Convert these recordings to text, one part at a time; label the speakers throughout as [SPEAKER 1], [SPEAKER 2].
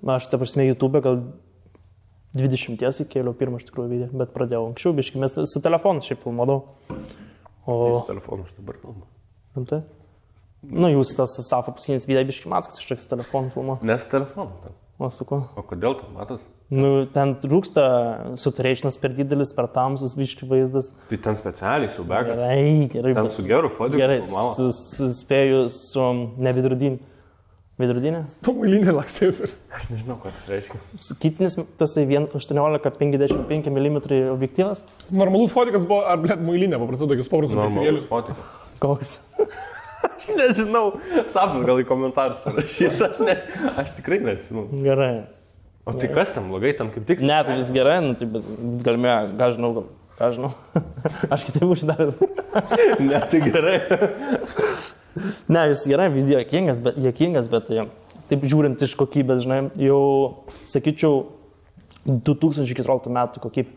[SPEAKER 1] Aš ta prasme YouTube gal 20 įkėliau pirmą iš tikrųjų video, bet pradėjau anksčiau, biškai, mes su telefonu šiaip filmuodavau.
[SPEAKER 2] Su telefonu aš dabar kalbu.
[SPEAKER 1] Rimtai? Nu, jūs tas Safo paskutinis video biškai matas, kad kažkoks telefonu filmuo.
[SPEAKER 2] Nes telefonu ten.
[SPEAKER 1] O su kuo?
[SPEAKER 2] O kodėl tu matas?
[SPEAKER 1] Nu, ten trūksta saturationas per didelis, per tamsus biškai vaizdas.
[SPEAKER 2] Tai ten specialiai su begas.
[SPEAKER 1] Gerai.
[SPEAKER 2] Ten su geru fotinku.
[SPEAKER 1] Gerai, suspėjau su nevidrudinį. Vidrudinė?
[SPEAKER 3] Tu mailinė lakstės.
[SPEAKER 2] Aš nežinau, ką tas reiškia.
[SPEAKER 1] Kitinis tasai 18-55 mm objektyvas.
[SPEAKER 3] Normalus fotikas buvo, ar blėt mailinė, paprastai tokius paprastus
[SPEAKER 2] Normalus fotikas.
[SPEAKER 1] Koks?
[SPEAKER 2] Aš nežinau, Safas gal į komentarus parašys, aš tikrai neatsimenu.
[SPEAKER 1] Gerai.
[SPEAKER 2] O tai kas ten blogai, ten kaip tik?
[SPEAKER 1] Ne, tai vis gerai, nu, tai galime, ką žinau. Aš kitaip uždavęs.
[SPEAKER 2] Ne, tai gerai.
[SPEAKER 1] Ne, vis gerai, vis juokingas, bet taip žiūrint iš kokybės, žinai, jau, sakyčiau, 2014 metų kokybė.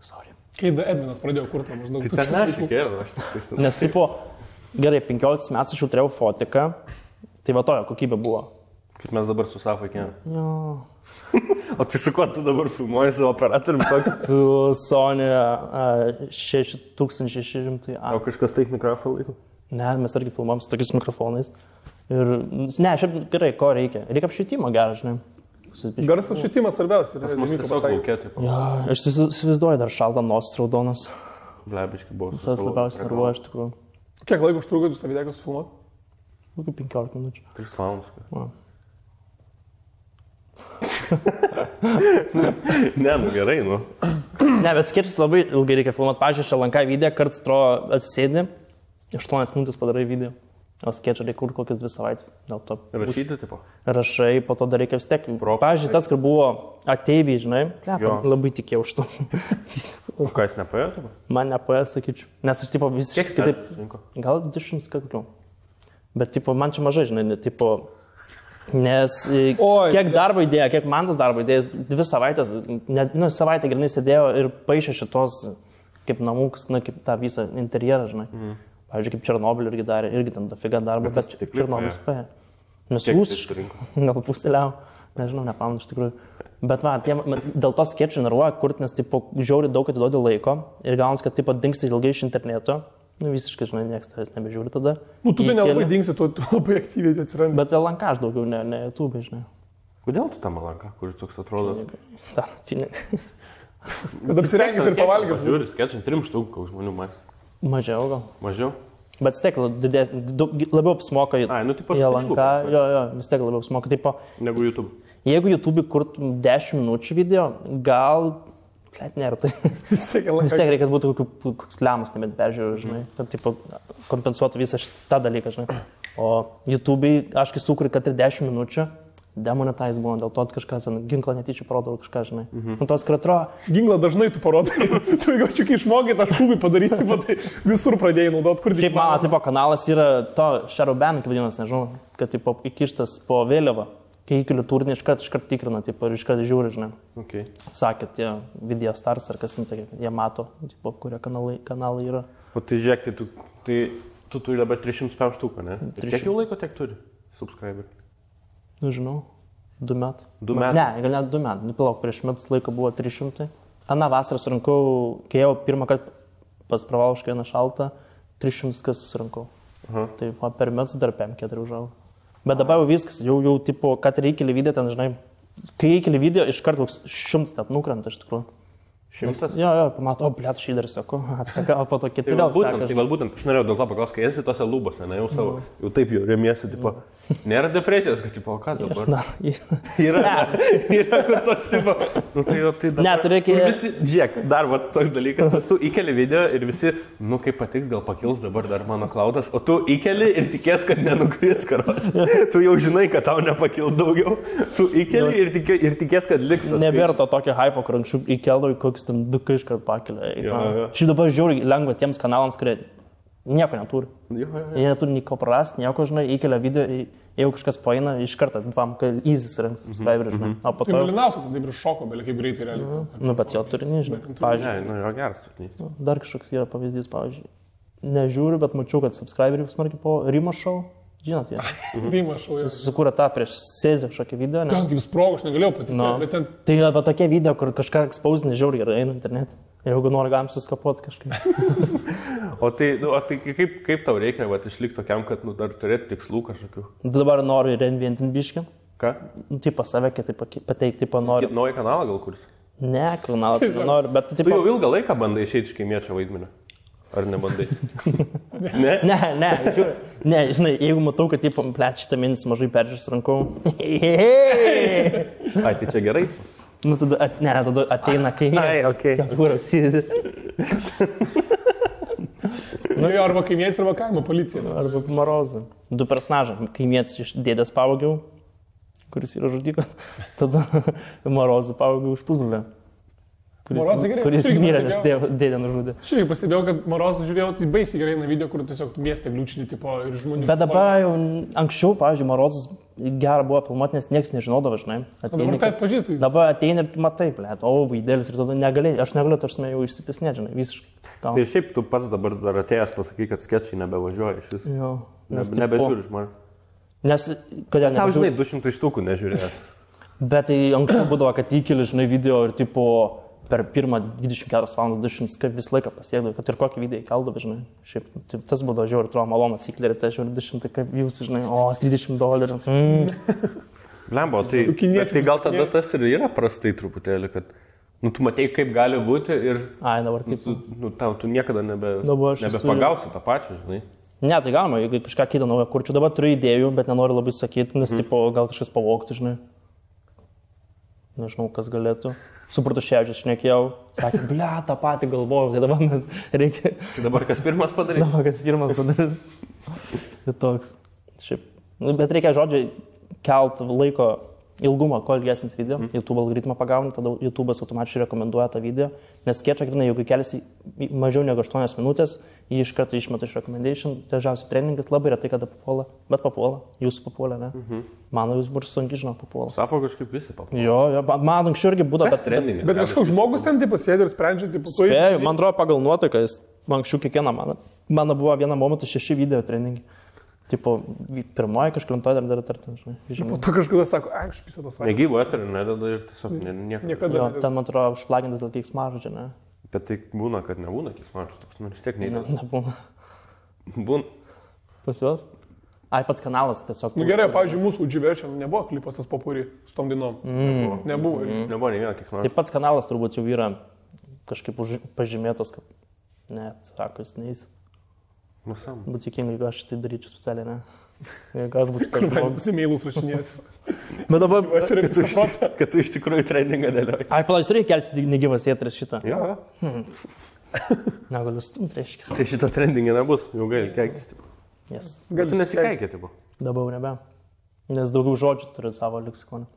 [SPEAKER 1] Sorry.
[SPEAKER 3] Kai Edvinas pradėjo kurti maždaug.
[SPEAKER 2] Tai ten aš įkėliau, aš tik tai.
[SPEAKER 1] Nes, tipo, gerai, 15 metų aš jau turėjau fotiką, tai va tojo kokybė buvo.
[SPEAKER 2] Kaip mes dabar su Safa kėlėm.
[SPEAKER 1] Jo.
[SPEAKER 2] O tai su kuo tu dabar filmuoji su operatoriumi tokį?
[SPEAKER 1] Su Sony 6600.
[SPEAKER 2] O kažkas taip mikrofoną laiko?
[SPEAKER 1] Ne, mes irgi filmuojam su tokiais mikrofonais. Ir, ne, šiaip gerai, ko reikia? Reikia apšvietimo gerą, žinai.
[SPEAKER 3] Garas apšvietimas svarbiausia.
[SPEAKER 2] Pas mus tiesiog laukia, taip.
[SPEAKER 1] Ja, aš įsivaizduoju dar šaltą nosis raudonas.
[SPEAKER 2] Blebiškai buvo.
[SPEAKER 1] Tas labiausiai nervuoja, iš tikrųjų.
[SPEAKER 3] Kiek laiko užtruko jūs tą video sufilmuoti?
[SPEAKER 1] Kokių 15 minučių.
[SPEAKER 2] 3 valandas.
[SPEAKER 1] Va.
[SPEAKER 2] Ne, nu gerai, nu.
[SPEAKER 1] Ne, bet skečus labai ilgai reikia filmuoti. Pavyzdžiui, Šalankai video, kartais atrodo atsisėdi, 8 minutės padarai video. O skečą reikia kurti kokias 2 savaitės. Dėl to.
[SPEAKER 2] Rašyti, tipo?
[SPEAKER 1] Rašai, po to dar reikia vis tiek. Pavyzdžiui, tas, kur buvo ateiviai, žinai, labai tikėjau už to.
[SPEAKER 2] O ką jis nepaėjo, tipo?
[SPEAKER 1] Man nepaėjo, sakyčiau. Nes aš, tipo, visiškai
[SPEAKER 2] kitaip.
[SPEAKER 1] Gal 200 kaklių. Bet, tipo, man čia mažai, žinai, tipo, nes kiek darbo įdėjo, kiek man tas darbo įdėjęs, 2 savaitės, nu, savaitę grinai sėdėjo ir paaišė šitos, kaip namūks, na, kaip tą visą interjerą, žinai. Pavyzdžiui, kaip Černobylį irgi darė, irgi ten dafiga darbo, bet Černobylis paėjo. Nes rusiškai, gal pusėliau, nežinau, nepamenu iš tikrųjų. Bet va, dėl to skečų nervuoja kurti, nes, tipo, žiauri daug atiduodi laiko ir gaunasi, kad, tipo, dingsti ilgai iš interneto. Nu, visiškai, žinai, niekas tavęs nebežiūri tada.
[SPEAKER 3] Nu, tu tai nelabai dingsi, tu labai aktyviai atsirandi.
[SPEAKER 1] Bet LNK aš daugiau, ne YouTube, žinai.
[SPEAKER 2] Kodėl tu tam LNK, kuris toks atrodo?
[SPEAKER 1] Dar, pinigai.
[SPEAKER 3] Kad apsirengęs ir pavalgęs.
[SPEAKER 2] Žiūri, skečai 3 štukų, koks žmonių matys.
[SPEAKER 1] Mažiau gal.
[SPEAKER 2] Mažiau?
[SPEAKER 1] Bet vis tiek labiau apsimoka į LNK. Jo, vis tiek labiau apsimoka. Tipo,
[SPEAKER 2] negu YouTube.
[SPEAKER 1] Jeigu YouTube kurtum 10 minučių video, gal... Kleit, nėra tai. Vis tiek reikia būti koks lemus, nebent peržiūrėjau, žinai, kad tipo, kompensuotų visą tą dalyką, žinai. O YouTube'ai, aš kai sukuriu, kad ir 10 minučių, demonetize būna, dėl to kažką, ginklą netyčia parodau kažką, žinai. Nu, tos, kur atrodo...
[SPEAKER 3] Ginklą dažnai tu parodai, tu jeigu kai išmokai tą šūvį padaryti, tai visur pradėjai naudoti, kur
[SPEAKER 1] šiaip mano, tipo, kanalas yra to Shadowban, kaip vadinasi, nežinau, kad, tipo, įkištas po vėliavą. Kai įkeliu turinį, iškart tikrina, tipo, ir iškart žiūri, žinai.
[SPEAKER 2] Okay.
[SPEAKER 1] Sakė, tie video stars ar kas, tai jie mato, tipo, kurie kanalai yra.
[SPEAKER 2] O tai žiūrėk, tai tu turi dabar 300 štuką, ne? Kiek jau laiko tiek turi subscriber?
[SPEAKER 1] Nu, žinau, 2 metai.
[SPEAKER 2] 2 metai?
[SPEAKER 1] Ne, gal net 2 metai. Nupalauk, prieš metus laiko buvo 300. Aną vasarą surinkau, kai jau pirmą kartą pas Pravalšką vieną šaltą, 300 kas susirinkau. Tai va, per metus dar 5-4 užaugo. Bet dabar jau viskas, jau tipo, kad reikia video ten, žinai, kai reikia video, iš karto 100 net nukrenta iš tikrųjų.
[SPEAKER 2] 100?
[SPEAKER 1] Jo, pamato, blėt, šį dar sėku, atsaka, o po to kiti
[SPEAKER 2] vėl
[SPEAKER 1] seka.
[SPEAKER 2] Tai galbūt, aš norėjau dėl to paklausti, kai esi tose lūbose, ne, jau taip jau remiesi, tipo, nėra depresijos, kad, tipo, o ką dabar? Yra kur toks, tipo, nu tai jau tai dabar.
[SPEAKER 1] Ne, tu reikia...
[SPEAKER 2] Žiūrėk, dar va toks dalykas, nes tu įkeli video ir visi, nu kaip patiks, gal pakils dabar dar mano klaudas, o tu įkeli ir tikės, kad nenukris, karoči. Tu jau žinai, kad tau nepakils daugiau, tu įkeli ir tikės, kad liks tas.
[SPEAKER 1] Nebėra to tokio hypo, kur anksčiau įkeldavai koks ten 2 iškart pakelia. Šiaip dabar žiūri lengva tiems kanalams, kurie nieko neturi. Jie neturi nieko prarasti, nieko, žinai, įkelia video, jeigu kažkas paeina, iš karto, kad easy surinks subscriberį, žinai. O po to...
[SPEAKER 3] Tai myliniausia, tai taip ir šoko, belia kaip greitai realiai.
[SPEAKER 1] Nu, bet jo turinį, žinai. Pavyzdžiui,
[SPEAKER 2] nu, yra geras turinys.
[SPEAKER 1] Dar kažkoks yra pavyzdys, pavyzdžiui. Nežiūriu, bet mačiau, kad subscriberiai smarkiai po Rimo Show. Žinot, jie.
[SPEAKER 3] Vyma šau.
[SPEAKER 1] Sukūrė tą prieš Sezį kažkokį video, ne?
[SPEAKER 3] Ten kaip sprogo, aš negalėjau patikėti.
[SPEAKER 1] No.
[SPEAKER 3] Bet ten...
[SPEAKER 1] Tai va tokie video, kur kažką ekspausinį žiauriai gerai eina internet. Jeigu nori, galim suskapoti kažkaip.
[SPEAKER 2] O tai kaip tau reikia išlikti tokiam, kad dar turėti tikslų kažkokių?
[SPEAKER 1] Dabar noriu reinventinti biškį.
[SPEAKER 2] Ką?
[SPEAKER 1] Tipo save kitaip pateikti, tipo noriu.
[SPEAKER 2] Naują kanalą gal kurs?
[SPEAKER 1] Ne, kanalą tai noriu, bet
[SPEAKER 2] tipo... Tu jau ilgą laiką bandai išeiti iš kaimiečio vaidmenio. Ar nebandai? Ne?
[SPEAKER 1] Ne, žinai, jeigu matau, kad tipo, šitą mėnesį mažai peržiūrės rankau.
[SPEAKER 2] Ai, tai čia gerai?
[SPEAKER 1] Nu, tada ateina kai...
[SPEAKER 2] Ai, okei.
[SPEAKER 1] Kur apsidė.
[SPEAKER 3] Nu, arba kaimietis, arba kaimo policija.
[SPEAKER 1] Arba Morozą. Du personažai. Kaimietis iš dėdės pavogiau, kuris yra žudikas. Tada Morozą pavogiau iš pusbrolio. Kuris mirė, nes dėdė nužudė.
[SPEAKER 3] Šiaip pastebėjau, kad Morozą žiūrėjau, tai baisiai gerai na video, kur tiesiog mieste gliūčinį tipo ir žmonių.
[SPEAKER 1] Bet dabar jau anksčiau, pavyzdžiui, Morozas gerą buvo filmuoti, nes niekas nežinodavo, žinai.
[SPEAKER 3] Dabar tai atpažįstai.
[SPEAKER 1] Dabar ateina ir matai, blėt, vaidėlis ir tada negalėjai, aš negaliu, tarsi jau išsipisnėti, žinai, visiškai.
[SPEAKER 2] Tai šiaip tu pats dabar dar atėjęs pasakai, kad sketčiai nebevažiuoja iš vis.
[SPEAKER 1] Jo.
[SPEAKER 2] Nebežiūri žmonės.
[SPEAKER 1] Nes, kodėl
[SPEAKER 2] nebežiūri? Tau, žinai, 200 štukų nežiūrėjęs.
[SPEAKER 1] Bet tai anksčiau būdavo, kad įkeli, žinai, video ir tipo... Per pirmą 24 valandas 200 visą laiką pasiekdavau, kad ir kokį video įkeldavau, žinai. Šiaip, tas būdavo žiauriai, atrodo, malonu atsiklerį, tai žiauriai 200, kaip jūs, žinai, $30.
[SPEAKER 2] Lembo, tai gal tada tas ir yra prastai truputėlį, kad, tu matei, kaip gali būti ir...
[SPEAKER 1] Ai, dabar taip.
[SPEAKER 2] Tu niekada nebepagausi tą pačią, žinai.
[SPEAKER 1] Ne, tai galima, jeigu kažką kitą naują kurčiu. Dabar turiu idėjų, bet nenoriu labai sakyti, nes, tipo, gal kažkas pavogtų, žinai. Nežinau, kas galėtų. Su Bartuševičius šnekėjau, sakė, ble, tą patį galvojau, tai dabar reikia...
[SPEAKER 2] Tai dabar kas pirmas padarys?
[SPEAKER 1] Dabar kas pirmas padarys. Tai toks. Šiaip. Bet reikia, žodžiai, kelt laiko ilgumą, kuo ilgesnis video. YouTube algoritmą pagauni, tada YouTube'as automatiškai rekomenduoja tą video. Nes skečą, grinai, jeigu keliasi mažiau negu 8 minutės, jį iš karto išmeta iš recommendation. Dažniausiai treningas labai retai kada papuola, bet papuola. Jūsų papuola, ne? Mano jūs bus sunkiai, žinau, papuola.
[SPEAKER 2] Safo kažkaip visi papuola.
[SPEAKER 1] Jo, man anksčiau irgi būdavo,
[SPEAKER 3] bet kažkoks žmogus ten taip sėdi ir sprendžia, taip papuola.
[SPEAKER 1] Spėjau, man atrodo pagal nuotaiką, jis anksčiau kiekvieną mano buvo vieną momentą 6 video treningai. Tipo, pirmoji kažklintoji dar žinai.
[SPEAKER 3] Po to kažkada sako, aš pisau tos vaikas.
[SPEAKER 2] Negyvo eterį nedada ir tiesiog niekada.
[SPEAKER 3] Jo,
[SPEAKER 1] ten, man atrodo, užflagintas dėl keiksmažodžio, čia, ne?
[SPEAKER 2] Bet tai būna, kad nebūna keiksmažodžio, tu vis tiek neįdė.
[SPEAKER 1] Nebūna.
[SPEAKER 2] Būna.
[SPEAKER 1] Pas juos? Ai, pats kanalas tiesiog.
[SPEAKER 3] Gerai, pavyzdžiui, mūsų Udživerčia nebuvo klipas tas Popuri su tom dainom. Nebuvo.
[SPEAKER 2] Nebuvo nei vieno keiksmažodžio.
[SPEAKER 1] Tai pats kanalas turbūt jau yra kažkaip pažymėtas, kad net, sako, jis neįs. Būtų tikingai, jeigu aš tai daryčiau specialiai, ne? Jeigu aš būčiau taip žmogus.
[SPEAKER 3] Mailus rašinėsiu.
[SPEAKER 1] Bet dabar,
[SPEAKER 2] kad tu iš tikrųjų trendingą dėlioji.
[SPEAKER 1] Ai, palauk, reikia kelsi negyvas eteris šitą.
[SPEAKER 2] Jo.
[SPEAKER 1] Negaliu stumti, reiškia.
[SPEAKER 2] Tai šito trendingai nebus, jau gali keiktis.
[SPEAKER 1] Yes.
[SPEAKER 2] Gal tu nesikeikė, tipo?
[SPEAKER 1] Dabar nebe. Nes daugiau žodžių turiu savo leksikoną.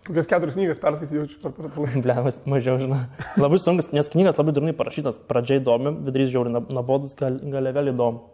[SPEAKER 3] Kokias 4 knygas perskaityti jaučiu per laiką.
[SPEAKER 1] Blemas, mažiau, žinai. Labai sunkus, nes knygas labai durnai parašytas. Pradžiai įdomi, vidurys žiauriai nabodus, gale vėl įdomu.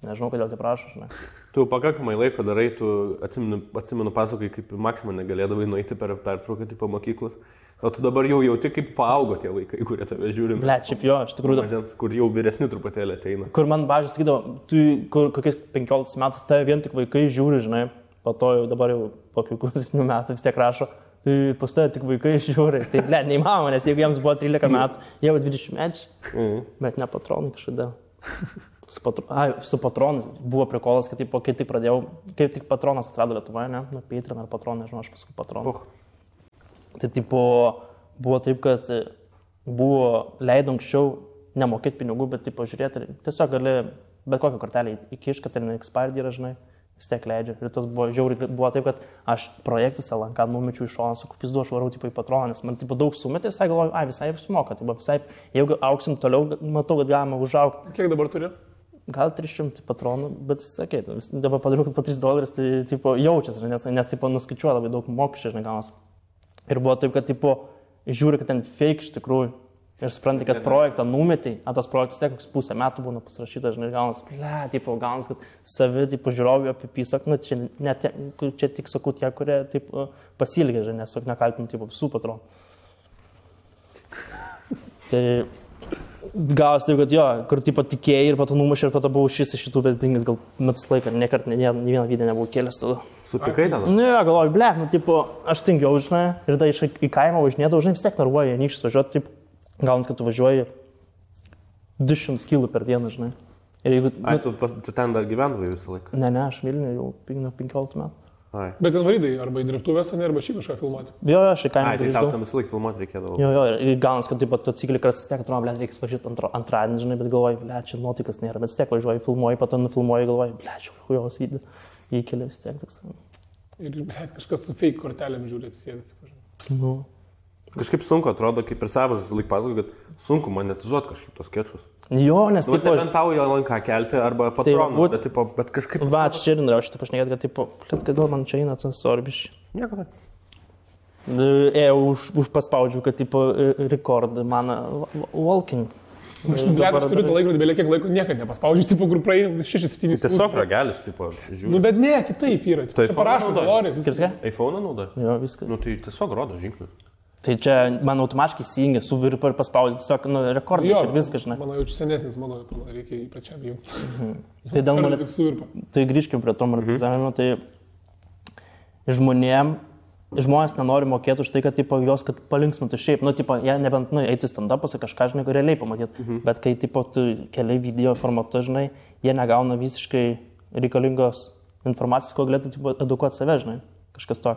[SPEAKER 1] Nežinau, kodėl tai prašo, žinai.
[SPEAKER 2] Tu pakankamai laiko darai, tu atsimenu pasakai, kaip Maksimą negalėdavai nueiti per pertrauką tipo mokyklos. O tu dabar jau jauti, kaip paaugo tie vaikai, kurie tave žiūri.
[SPEAKER 1] Ble, šiaip jo, iš tikrųjų.
[SPEAKER 2] Mažens, kur jau vyresni truputėlį ateina.
[SPEAKER 1] Kur man bažiai sakydavo, tu kokiais 15 metais tave vien tik vaikai žiūri, žinai. Po to jau dabar jau po kokių 7 metų vis tiek rašo. Tai pas tave tik vaikai žiūri. Tai ble, neįmanoma, nes jeigu jiems buvo 13 metų, jau 20 mečiai. Bet ne patronai kažkodėl. Su patronais buvo prikolas, kad kai tik pradėjau, kaip tik patronas atsirado Lietuvoje, ne? Nu, Patreon ar patronai, nežinau, aš paskui patronas. Tai tipo, buvo taip, kad buvo leido anksčiau nemokėti pinigų, bet tipo žiūrėti, tiesiog gali bet kokią kortelę įkišti, kad ir expired yra, žinai, vis tiek leidžia. Ir tas buvo žiauriai, buvo taip, kad aš projektas LNK numečiau iš šoną, sakau, pizdu, aš varau tipo į patroną, nes man tipo daug sumetė, visai galvoju, visai apsimoka, tipo, visai, jeigu auksim toliau, matau, kad galima užaugti.
[SPEAKER 3] Kiek dabar turi?
[SPEAKER 1] Gal 300 patronų, bet sakė, dabar padariau, kad po $3, tai tipo, jaučiasi, nes tipo, nuskaičiuoja labai daug mokesčių, žinai, galas. Ir buvo taip, kad tipo, žiūri, kad ten fake iš tikrųjų. Ir supranti, kad projektą numetai, tas projektas tiek koks pusę metų būna pasirašytas, žinai, galas, tipo, galas, kad savi, tipo, žiūrovai apipisak, nu, čia tik sakau tie, kurie, tipo, pasilgė, žinai, nes nekaltinu, tipo, visų patronų. Tai Gavas taip, kad jo, kur tipo tikėjai ir po to numušė ir po to buvau šis iš šitų besdingęs, gal metus laiką, niekart, ne vieną video nebuvau kėlęs tada.
[SPEAKER 2] Supikai tada?
[SPEAKER 1] Nu, jo, galvoju, ble, nu, tipo, aš tingiau, žinai, ir tada į kaimą važinėdavau, žinai, vis tiek narvuoju, nykščius važiuoti, taip, gaunas, kad tu važiuoji 200 km per dieną, žinai. Ir jeigu...
[SPEAKER 2] Ai, tu ten dar gyvendavai visą laiką?
[SPEAKER 1] Ne, aš Vilniuje jau 15 metų.
[SPEAKER 2] Ai.
[SPEAKER 3] Bet ten varydai arba į dirbtuvės, arba šį kažką filmuoti.
[SPEAKER 1] Jo, aš į kaimą
[SPEAKER 2] grįždavau. Ai, tai tau tam visą laiką filmuoti reikėdavo.
[SPEAKER 1] Jo, ir gaunas, kad taip pat atsikeli kartais vis tiek, atrodo, ble, reikia važiuoti antradienį, žinai, bet galvoju, ble, čia nuotikas nėra, bet vis tiek važiuoju, filmuoju, po to nufilmuoju, galvoju, ble, čia hujos video, įkeli vis tiek toks.
[SPEAKER 3] Ir ble, kažkas su fake kortelėm žiūrėt, sėdėt.
[SPEAKER 1] Nu.
[SPEAKER 2] Kažkaip sunku atrodo, kaip ir savas visą laiką pasakoju, kad sunku monetizuoti kažkaip tos skečus.
[SPEAKER 1] Jo, nes
[SPEAKER 2] taip... Nu, nebent tau jo lanką kelti arba patronus, bet kažkaip...
[SPEAKER 1] Va, čia ir norėjau šitą pašnekėti, kad tipo, kodėl man čia eina tas sorbiš.
[SPEAKER 2] Nieko, bet.
[SPEAKER 1] Už paspaudžiu, kad tipo record man walking.
[SPEAKER 3] Aš turiu tą laikrodį, belie kiek laiko niekad nepaspaudžiu, tipo, kur praeina 6-7.
[SPEAKER 2] Tiesiog ragelis, tipo, žiūri.
[SPEAKER 3] Nu, bet ne, kitaip yra.
[SPEAKER 2] Tai
[SPEAKER 3] čia parašo dolorės.
[SPEAKER 2] iPhone naudoja?
[SPEAKER 1] Jo, viskas.
[SPEAKER 2] Nu, tai tiesiog rodo žingsnius.
[SPEAKER 1] Tai čia man automatiškai įsijungia, suviri ir paspaudži, tiesiog, nu, rekordai ir viskas, žinai.
[SPEAKER 3] Mano jaučiu senesnis, mano reikia jį pačiam jau.
[SPEAKER 1] Tai dėl monetizavimo. Tai grįžkim prie to monetizavimo, tai žmonės nenori mokėti už tai, kad tipo, jos kad palinksmintų šiaip, nu, tipo, jie nebent, nu, eiti stand-upus ir kažką, žinai, realiai pamatyti, bet kai, tipo, tu keliai video formatu, žinai, jie negauna visiškai reikalingos informacijos, ko galėtų, tipo, edukuoti save, žinai, kažkas to.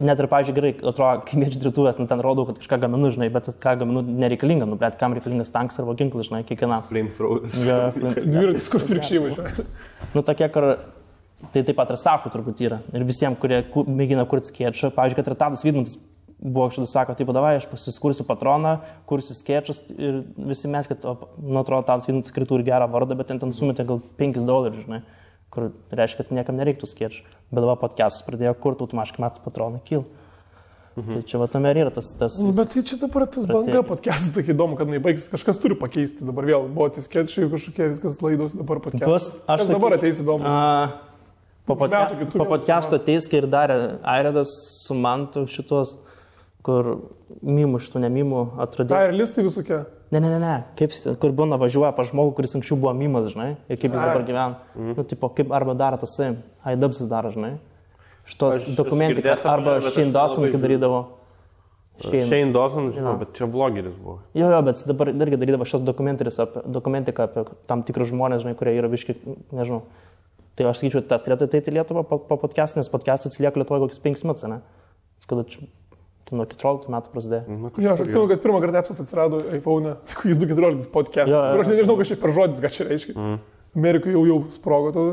[SPEAKER 1] Net ir, pavyzdžiui, gerai, atrodo, kaimiečių dirbtuvės, nu, ten rodau, kad kažką gaminu, žinai, bet ką gaminu nereikalinga, nu, bet kam reikalingas tankas arba ginklas, žinai, kiekvienam.
[SPEAKER 2] Flamethrower.
[SPEAKER 1] Ja,
[SPEAKER 3] dviratis, kur virkščiai važiuoja.
[SPEAKER 1] Nu, tokie, kur tai taip pat ir safų turbūt yra. Ir visiems, kurie mėgina kurti skečą, pavyzdžiui, kad ir Tadas Vidmantas buvo šitas sako, taip, davai, aš pasiskursiu patroną, kursiu skečus ir visi mes, kad, nu, atrodo, Tadas Vidmantas tikrai turi gerą vardą, bet ten sumetė gal $5, žinai. Kur reiškia, kad niekam nereiktų skėčių. Bet dabar podcastus pradėjo kurti, automatiškai metų patronai kyl. Tai čia va tame ir yra tas...
[SPEAKER 3] Bet tai čia dabar tas banga podcastas, tai įdomu, kad nebaigsis, kažkas turi pakeisti. Dabar vėl buvo tie skėčiai, kažkokie viskas laidos, dabar podcastas. Aš dabar ateis įdomu.
[SPEAKER 1] Po podcasto ateis, kai ir darė Airedas su Mantu šitos, kur mimų šitų nemimų atradė.
[SPEAKER 3] Tai ir listai visokie?
[SPEAKER 1] Ne. Kaip, kur būna važiuoja pa žmogų, kuris anksčiau buvo mimas, žinai, ir kaip jis dabar gyvena. Nu, tipo, kaip arba daro tas, Haidabsis daro, žinai. Šitos dokumentiką, arba Shane Dawson, kai darydavo.
[SPEAKER 2] Shane Dawson, žinau, bet čia vlogeris buvo.
[SPEAKER 1] Jo, bet dabar irgi darydavo šios dokumentiką apie tam tikrus žmonės, žinai, kurie yra viški, nežinau. Tai aš sakyčiau, tas turėtų ateiti į Lietuvą po podcast'ą, nes podcast'as atsilieka Lietuvoje kokius 5 metus, ne? Kada čia nuo 14 metų prasidėjo.
[SPEAKER 3] Jo, aš atsimenu, kad pirmą kartą apsas atsirado iPhone, jis 2014 podcast. Aš nežinau, kas čia per žodis, ką čia reiškia. Amerikoje jau sprogo tada.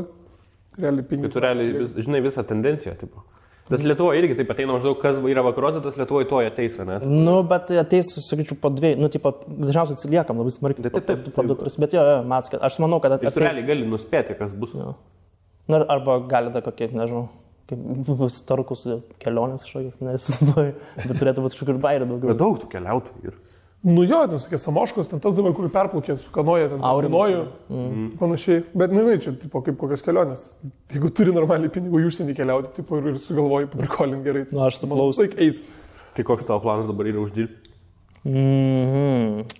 [SPEAKER 3] Realiai 5.
[SPEAKER 2] Tu realiai, žinai, visą tendenciją, tipo. Tas Lietuvoje irgi taip ateina maždaug, kas yra vakaruose, tas Lietuvoje toje ateis, ne?
[SPEAKER 1] Nu, bet ateis, sakyčiau, po 2, nu, tipo, dažniausiai atsiliekam labai smarkiai.
[SPEAKER 2] Taip.
[SPEAKER 1] Bet jo, Mats, aš manau, kad ateis.
[SPEAKER 2] Tu realiai gali nuspėti, kas bus.
[SPEAKER 1] Na, arba gali dar kokie, nežinau. Kaip starkus kelionės kažkokios, nesisuoju, bet turėtų būti kažkur bairė daugiau.
[SPEAKER 2] Bet daug tų keliautojų ir.
[SPEAKER 3] Nu jo, ten tokie Samoškos, ten tas dabar, kur perplaukė su kanoja, ten Aurinoju, panašiai. Bet nežinai, čia tipo, kaip kokios kelionės. Jeigu turi normaliai pinigų į užsienį keliauti, tipo, ir sugalvoji paprikolint gerai.
[SPEAKER 1] Na, aš suplausau.
[SPEAKER 2] Tai koks tavo planas dabar yra uždirbti?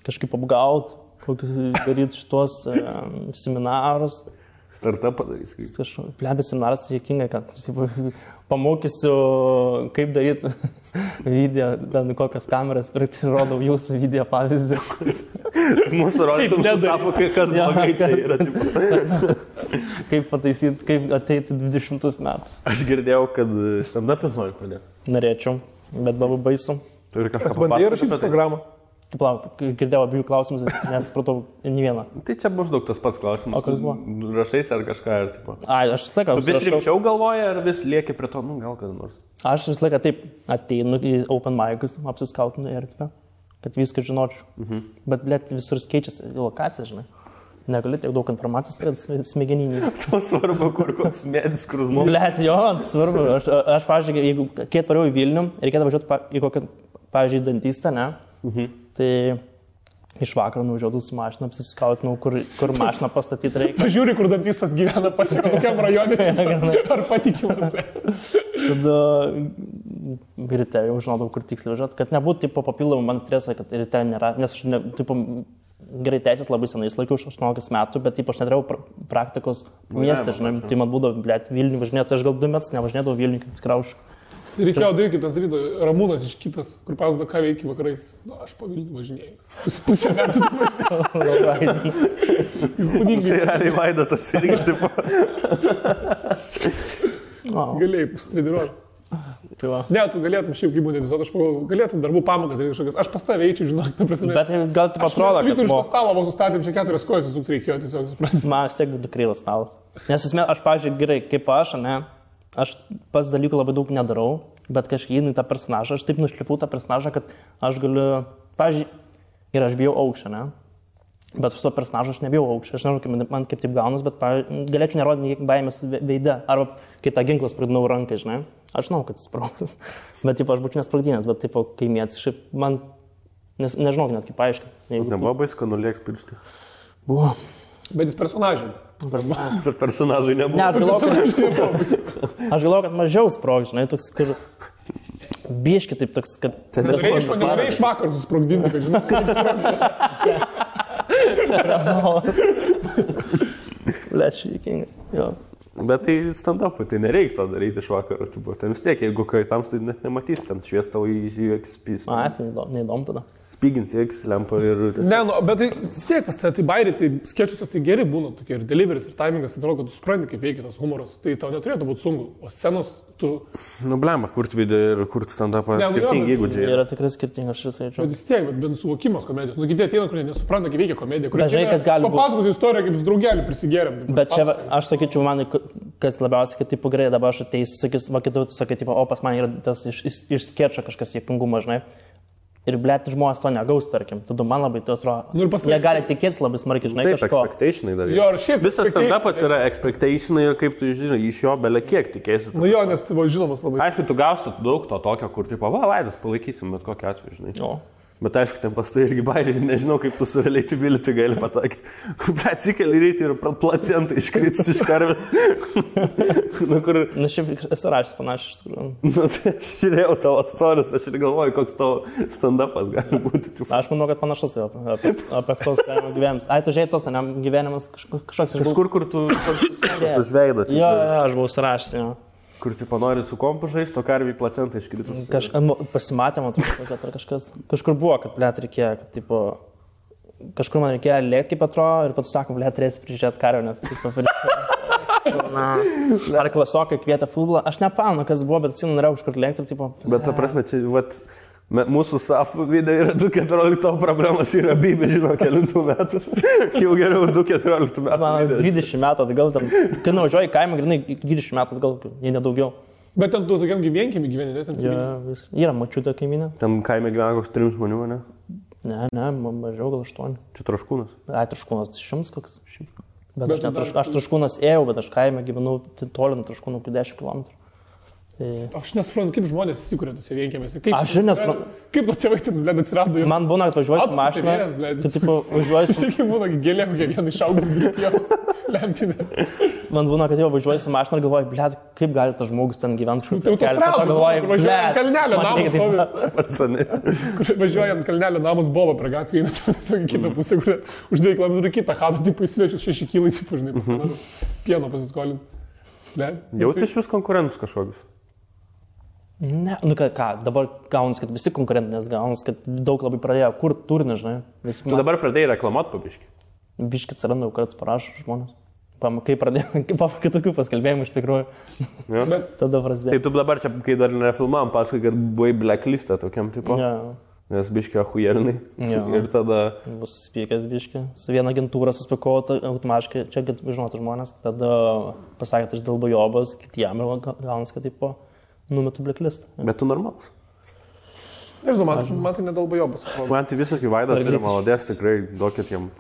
[SPEAKER 1] Kažkaip apgaut, kokius daryti šitos seminarus.
[SPEAKER 2] Startą padarys.
[SPEAKER 1] Plebė seminaras tai jėkinga, kad pamokysiu, kaip daryti video, ten kokias kameras, ir rodau jūsų video pavyzdį.
[SPEAKER 2] Mūsų rodytum susako, kas blogai čia yra.
[SPEAKER 1] Kaip pataisyti, kaip ateiti 20 metus.
[SPEAKER 2] Aš girdėjau, kad stand-up'is nori pradėti.
[SPEAKER 1] Norėčiau, bet labai baisu.
[SPEAKER 2] Turi kažką
[SPEAKER 3] bandai rašyti programą.
[SPEAKER 1] Girdėjau abiejų klausimus, nesupratau nei vieną.
[SPEAKER 2] Tai čia maždaug tas pats klausimas.
[SPEAKER 1] O kas buvo?
[SPEAKER 2] Rašais ar kažką ir tipo.
[SPEAKER 1] Ai, aš visą laiką.
[SPEAKER 2] Tu vis rimčiau galvoji ar vis lieki prie to, nu gal kada nors?
[SPEAKER 1] Aš visą laiką taip ateinu į open mic'us, apsiskautinu erdvę, kad viską žinočiau. Bet, blėt, visur keičiasi lokacija, žinai. Negali tiek daug informacijos turėti smegeninį.
[SPEAKER 2] To svarbu, kur koks medis, kur žmogus.
[SPEAKER 1] Blėt, jo, tai svarbu. Aš pavyzdžiui, jeigu kai atvariau į Vilnių, reikėtų važiuoti į kokią, pavyzdžiui, dantistą, ne? Tai iš vakaro nuvažiuodavau su mašina, apsiskautinau, kur mašiną pastatyti reikia.
[SPEAKER 3] Pažiūri, kur dantistas gyvena, pasiekau, kokiam rajone, ar patikimas.
[SPEAKER 1] Tada ryte jau žinodavau, kur tiksliai važiuoti, kad nebūtų tipo papildomų man stresą, kad ryte nėra, nes aš tipo, gerai teisės labai senai laikiau, 18 metų, bet taip aš neturėjau praktikos mieste, žinai, tai man būdavo, blėt, Vilnių važinėti, tai aš gal 2 metus nevažinėdavau Vilnių, kaip skraušiu.
[SPEAKER 3] Tai reikėjo daryti kitas ryto, Ramūnas iš kitas, kur pasako, ką veikia vakarais. Na, aš po Vilnių važinėjau. Pusę metų.
[SPEAKER 2] Tai realiai Vaidotas irgi, tipo.
[SPEAKER 3] Galėjai pasitreniruoti. Ne, tu galėtum šiaip kaip būnėtis, aš galėtum darbų pamokas daryti kažkokias. Aš pas tave eičiau, žinok, ta prasme.
[SPEAKER 1] Bet gal taip atrodo,
[SPEAKER 3] kad... Aš iš to stalo vos sustatėm, čia 4 kojas susukti reikėjo, tiesiog suprantu.
[SPEAKER 1] Man vis tiek būtų krylas stalas. Nes aš, pavyzdžiui, gerai, kaip aš, ne, aš pas dalykų labai daug nedarau, bet kažkaip įeinu į tą personažą, aš taip nušlifu tą personažą, kad aš galiu, pavyzdžiui, ir aš bijau aukščio, ne? Bet su to personažu aš nebijau aukščio, aš nežinau, man kaip taip gaunas, bet galėčiau nerodyti kiek baimės veide, arba kai tą ginklą spragdinau rankai, žinai, aš žinau, kad sprogs, bet taip aš būčiau nespragdinęs, bet taip kaimietis, šiaip man, nežinau net kaip paaiškinti.
[SPEAKER 2] Nebuvo baisko nulėks piršti?
[SPEAKER 1] Buvo.
[SPEAKER 3] Bet jis personažai.
[SPEAKER 2] Bet personažai nebuvo.
[SPEAKER 1] Ne, aš galvoju, kad mažiau sprogs, žinai, toks, kur... Bieški taip toks, kad...
[SPEAKER 3] Nenorėjai iš vakarų susprogdinti, kad žinai, kaip sprogdinti.
[SPEAKER 1] Lėčiai, juokinga. Jo.
[SPEAKER 2] Bet tai stand-upui, tai nereikia to daryti iš vakarų. Ten vis tiek, jeigu kaitams, tai net nematys, ten švies tau į XP.
[SPEAKER 1] Tai neįdomu tada.
[SPEAKER 2] Spygins į X lempą ir...
[SPEAKER 3] Ne, nu, bet tai vis tiek pas tai bairiai, tai skečuose tai geri būna tokie ir deliveris, ir timingas, tai atrodo, kad tu supranti, kaip veikia tas humoras. Tai tau neturėtų būti sunku, o scenos tu...
[SPEAKER 2] Nu, blemba, kurt video ir kurt stand-upą skirtingi įgūdžiai.
[SPEAKER 1] Yra tikrai skirtingi, aš ir sakyčiau.
[SPEAKER 3] Bet vis tiek, bet suvokimas komedijos. Nu, kiti ateina, kurie nesupranta, kaip veikia komedija.
[SPEAKER 1] Dažnai kas gali būti.
[SPEAKER 3] Papasakos istoriją, kaip su draugelį prisigėrėm.
[SPEAKER 1] Bet čia, aš sakyčiau, man, kas labiausiai, kad taip gerai dabar aš ateisiu, sakys, va kitur tu sakai, o pas man yra tas iš skečio kažkas juokingumas, žinai. Ir, blėt, žmonės to negaus, tarkim. Tada man labai tai atrodo. Nu, jie gali tikėtis labai smarkiai, žinai,
[SPEAKER 2] kažko. Taip, expectationai dar. Jo, visas stand-upas yra expectationai ir kaip tu žinai, iš jo belia kiek tikėsi.
[SPEAKER 3] Nu jo, nes tai buvo žinomas labai.
[SPEAKER 2] Aišku, tu gausi daug to tokio, kur tipo, va, Vaidas, palaikysim, bet kokiu atveju, žinai.
[SPEAKER 3] Jo.
[SPEAKER 2] Bet aišku, ten pas tai irgi bairiai, nežinau, kaip tu su relatability gali patakyti. Atsikeli rytį ir placentai iškritus iš karvės.
[SPEAKER 1] Na, šiaip esu rašęs panašiai iš tikrųjų.
[SPEAKER 2] Nu, tai aš žiūrėjau tavo atstorius, aš ir galvoju, koks tavo stand-upas gali būti.
[SPEAKER 1] Aš manau, kad panašus jau apie tos gyvenimus. Ai, tu žiūrėjai tos, ne, gyvenimas kažkoks...
[SPEAKER 2] Kažkur, kur tu žveidat.
[SPEAKER 1] Jo, aš buvau surašęs, jo.
[SPEAKER 2] Kur tipo nori su kompu žaisti, o karviai placentą iškritus.
[SPEAKER 1] Pasimatėm, kad kažkas. Kažkur buvo, kad blėt reikėjo, kad tipo... Kažkur man reikėjo lėkti, kaip atrodo, ir pats sako, blėt, turėsi prižiūrėti karvę, nes tipo... Ar klasiokai kvietė futbolą. Aš nepamenu, kas buvo, bet atsimenu, norėjau kažkur lėkti ir tipo...
[SPEAKER 2] Bet ta prasme, čia, vat... Mūsų SAF video yra 2.14, tavo problemas yra bybė, žinau, kelintų metų. Jau geriau 2.14 metų.
[SPEAKER 1] Man 20 metų atgal, kai nuvažiuoju į kaimą, grinai 20 metų atgal, jei nedaugiau.
[SPEAKER 3] Bet ten tu tokiam gyvenkimi gyveni, ne? Ten
[SPEAKER 1] ja, yra mačiutė kaiminė.
[SPEAKER 2] Ten kaime gyvena koks 3 žmonių, ne?
[SPEAKER 1] Ne, mažiau gal 8.
[SPEAKER 2] Čia Traškūnas?
[SPEAKER 1] Ai, Traškūnas, 100 koks. Bet aš Traškūnas ėjau, bet aš kaime gyvenau toli nuo Traškūnų 10 km.
[SPEAKER 3] Aš nesuprantu, kaip žmonės įsikūrė tose vienkėmėse.
[SPEAKER 1] Aš ir nesuprantu.
[SPEAKER 3] Kaip to tėvai ten, blėd, atsirado jūs?
[SPEAKER 1] Man būna, kad važiuoju su mašina. Kad, tipo, važiuoju su...
[SPEAKER 3] Kaip būna, gėlė, kokia viena išaugdus gripjos lempinė.
[SPEAKER 1] Man būna, kad jau važiuoju su mašina ir galvoju, blėd, kaip gali tas žmogus ten gyventi kažkur.
[SPEAKER 3] Tai autostrada, važiuoju kalnelio namus. Važiuoju ant kalnelio namus Boba prie gatvį, tiesiog į kitą pusę, kur už 2 km kitą chatą, tipo, į svečius 6 kilai, tipo, žinai, pieno pasiskolint.
[SPEAKER 2] Jauti iš vis konkurentus kažkokius?
[SPEAKER 1] Ne, nu ką, dabar gaunas, kad visi konkurentinės gaunas, kad daug labai pradėjo kur turinį, žinai.
[SPEAKER 2] Tu dabar pradėjai reklamuoti po biškį?
[SPEAKER 1] Biškį atsiranda, kartais parašo žmonės. Kai pradėjau, kai tokių paskelbėjimų iš tikrųjų.
[SPEAKER 2] Ja.
[SPEAKER 1] Tada prasidėjo.
[SPEAKER 2] Tai tu dabar čia, kai dar nefilmavom, pasakai, kad buvai blacklistą tokiam tipo.
[SPEAKER 1] Ja.
[SPEAKER 2] Nes biškį ahujernai.
[SPEAKER 1] Ja.
[SPEAKER 2] Ir tada...
[SPEAKER 1] Bus spykęs biškį. Su viena agentūra suspikau automatiškai, čia žinotų žmonės. Tada pasakė, aš dėl bajobas, kitiem ir gaunas, kad tipo... Numetu blacklist.
[SPEAKER 2] Bet tu normalus.
[SPEAKER 3] Nežinau, man tai nedalba jobas.
[SPEAKER 2] Man tai visiškai Vaidas yra maladės, tikrai duokit jam.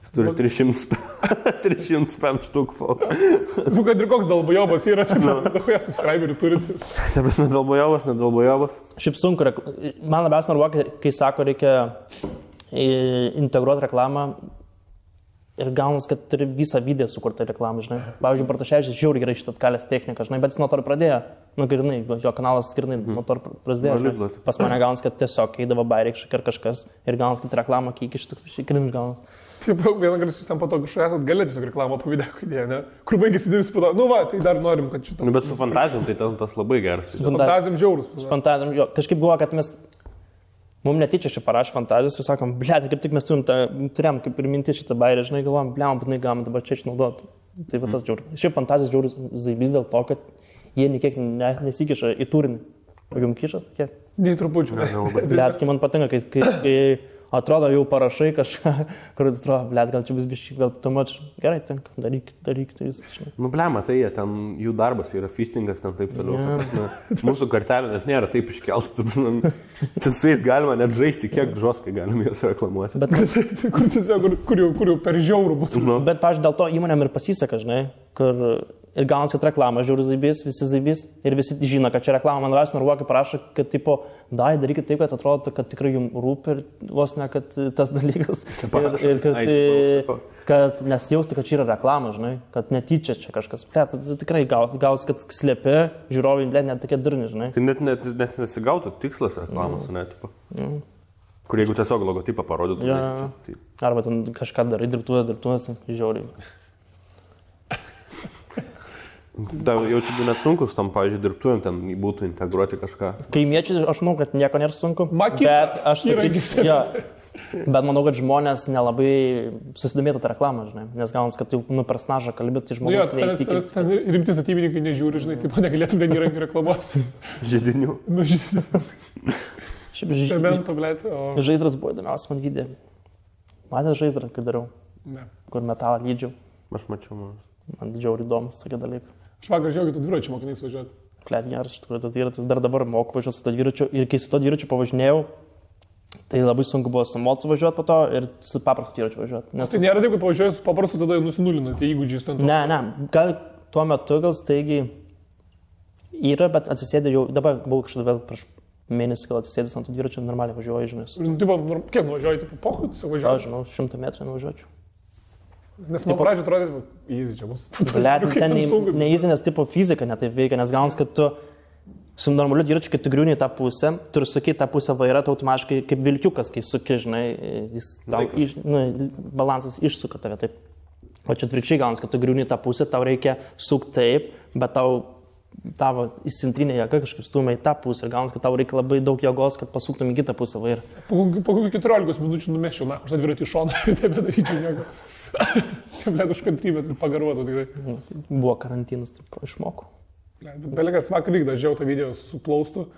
[SPEAKER 2] Jis turi 305 štukų.
[SPEAKER 3] Nu, kad ir koks dalba jobas yra, tai dahoje subscriberių turite.
[SPEAKER 2] Taip, nedalba jobas.
[SPEAKER 1] Šiaip sunku, man labiausiai nervuoja, kai sako, reikia integruoti reklamą. Ir gaunas, kad turi visą video sukurtą reklamą, žinai. Pavyzdžiui, Bartoševičius žiauriai gerai šitą atkalęs techniką, žinai, bet jis nuo to ir pradėjo. Nu, grinai, jo kanalas grinai nuo to prasidėjo. Žinai. Pas mane gaunas, kad tiesiog eidavo bairėkščiai ar kažkas ir gaunas, kad reklamą kiek iš toks cringe gaunas.
[SPEAKER 3] Taip, vieną kartą jūs ten po to kažką esat galė tiesiog reklamą po video idėją, ne? Kur baigėsi videos po to, nu va, tai dar norim, kad šitą.
[SPEAKER 2] Nu, bet su fantazijom tai tas labai geras.
[SPEAKER 3] Su fantazijom žiaurus.
[SPEAKER 1] Su fantazijom, jo, kažkaip buvo, kad mums netyčia šį parašė fantazijos ir sakom, blėt, kaip tik mes turėjom kaip ir minti šitą bairę, žinai, galvom, blėm, būtinai galim dabar čia išnaudoti. Tai va tas žiaurus. Šiaip fantazijos žiaurus zaibys dėl to, kad jie niekiek nesikiša į turinį. O jums kišas? Kiek?
[SPEAKER 3] Nei trupučių.
[SPEAKER 1] Blėt, kai man patinka, kai atrodo jau parašai kažką, kur atrodo, blėt, gal čia bus biškai, gal tu mač, gerai, tinka, daryk, tai viskas.
[SPEAKER 2] Nu, blėma, tai jie ten, jų darbas yra fistingas, ten taip toliau. Ja. Mūsų kartelė net nėra taip iškelta, ten su jais galima net žaisti, kiek žoskai galime juos reklamuoti.
[SPEAKER 1] Bet
[SPEAKER 3] kur tiesiog, kur jau per žiaurų būtų.
[SPEAKER 1] Nu. Bet, pavyzdžiui, dėl to įmonėm ir pasiseka, žinai, kur ir gaunas, kad reklama žiūri zaibys, visi zaibys ir visi žino, kad čia reklama, man vas norvokai parašo, kad tipo, darykit taip, kad atrodo, kad tikrai jums rūpi ir vos ne, kad tas dalykas. Ir kad nesijausti, kad čia yra reklama, žinai, kad netyčia čia kažkas. Tai tikrai gaus, kad slėpi, žiūrovai, net tokie durni, žinai.
[SPEAKER 2] Tai net nesigautų tikslas reklamos, ne, tipo. Kur jeigu tiesiog logotipą parodytų.
[SPEAKER 1] Tai... Arba ten kažką darai, dirbtuvės, žiauriai.
[SPEAKER 2] Da, jaučiu, net sunkus tam, pavyzdžiui, dirbtuvėm ten būtų integruoti kažką.
[SPEAKER 1] Kaimiečiai, aš manau, kad nieko nėra sunku.
[SPEAKER 3] Bet aš
[SPEAKER 1] bet manau, kad žmonės nelabai susidomėtų tą reklamą, žinai. Nes gaunas, kad jau per snažą kalbėti, tai žmonės neįtikins.
[SPEAKER 3] Rimti statybininkai nežiūri, žinai, taip negalėtum ten įrankį reklamuoti.
[SPEAKER 2] Židinių.
[SPEAKER 3] Cemento, blėt.
[SPEAKER 1] Žaizdras buvo įdomiausias man video. Matėte žaizdrą, kai dariau?
[SPEAKER 3] Ne.
[SPEAKER 1] Kur metalą lydžiau.
[SPEAKER 2] Aš mačiau.
[SPEAKER 1] Man didžiausiai įdomus tokie dalykai.
[SPEAKER 3] Aš vakar žiūrėjau, kad tu dviračiu mokinais važiuoti.
[SPEAKER 1] Plėt geras, iš tikrųjų, tas dviratis dar dabar moku važiuoti su to dviračiu. Ir kai su to dviračiu pavažinėjau, tai labai sunku buvo su mocu važiuoti po to ir su paprastu dviračiu važiuoti. Nes
[SPEAKER 3] tai nėra taip, kad pavažiuoji su paprastu, tada nusinulina tie įgūdžiai stand.
[SPEAKER 1] Ne, gal tuo metu gal staigiai yra, bet atsisėdė jau, dabar buvau kažkada vėl prieš mėnesį, gal atsisėdęs ant to dviračio, normaliai važiuoju, žinai.
[SPEAKER 3] Kiek nuvažiuoji, tipo, pochut, važiuoju?
[SPEAKER 1] Aš žinau, 100 metrų nuvažiuočiau.
[SPEAKER 3] Nes man pradžio atrodė, easy čia bus.
[SPEAKER 1] Blet, ten ne easy, nes tipo fizika netaip veikia, nes gaunas, kad tu su normaliu dviračiu, kai tu griūni tą pusę, turi sukyti tą pusę vairą, tai automatiškai kaip vilkiukas, kai suki, žinai, jis tau balansas išsuka tave taip. O čia atvirkščiai gaunas, kad tu griūni tą pusę, tau reikia sukti taip, bet tavo įsintrinė jėga kažkaip stumia į tą pusę ir gaunas, kad tau reikia labai daug jėgos, kad pasuktum į kitą pusę vairą.
[SPEAKER 3] Po kokių 14 minučių numeščiau, na, aš tą dviratį iš šoną ir nebedaryčiau nieko. Čia, blėt, už kantrybę ir pagaruotų tikrai.
[SPEAKER 1] Buvo karantinas, taip išmokau.
[SPEAKER 3] Belegas vakar vykda, žiau tą video su plaustu.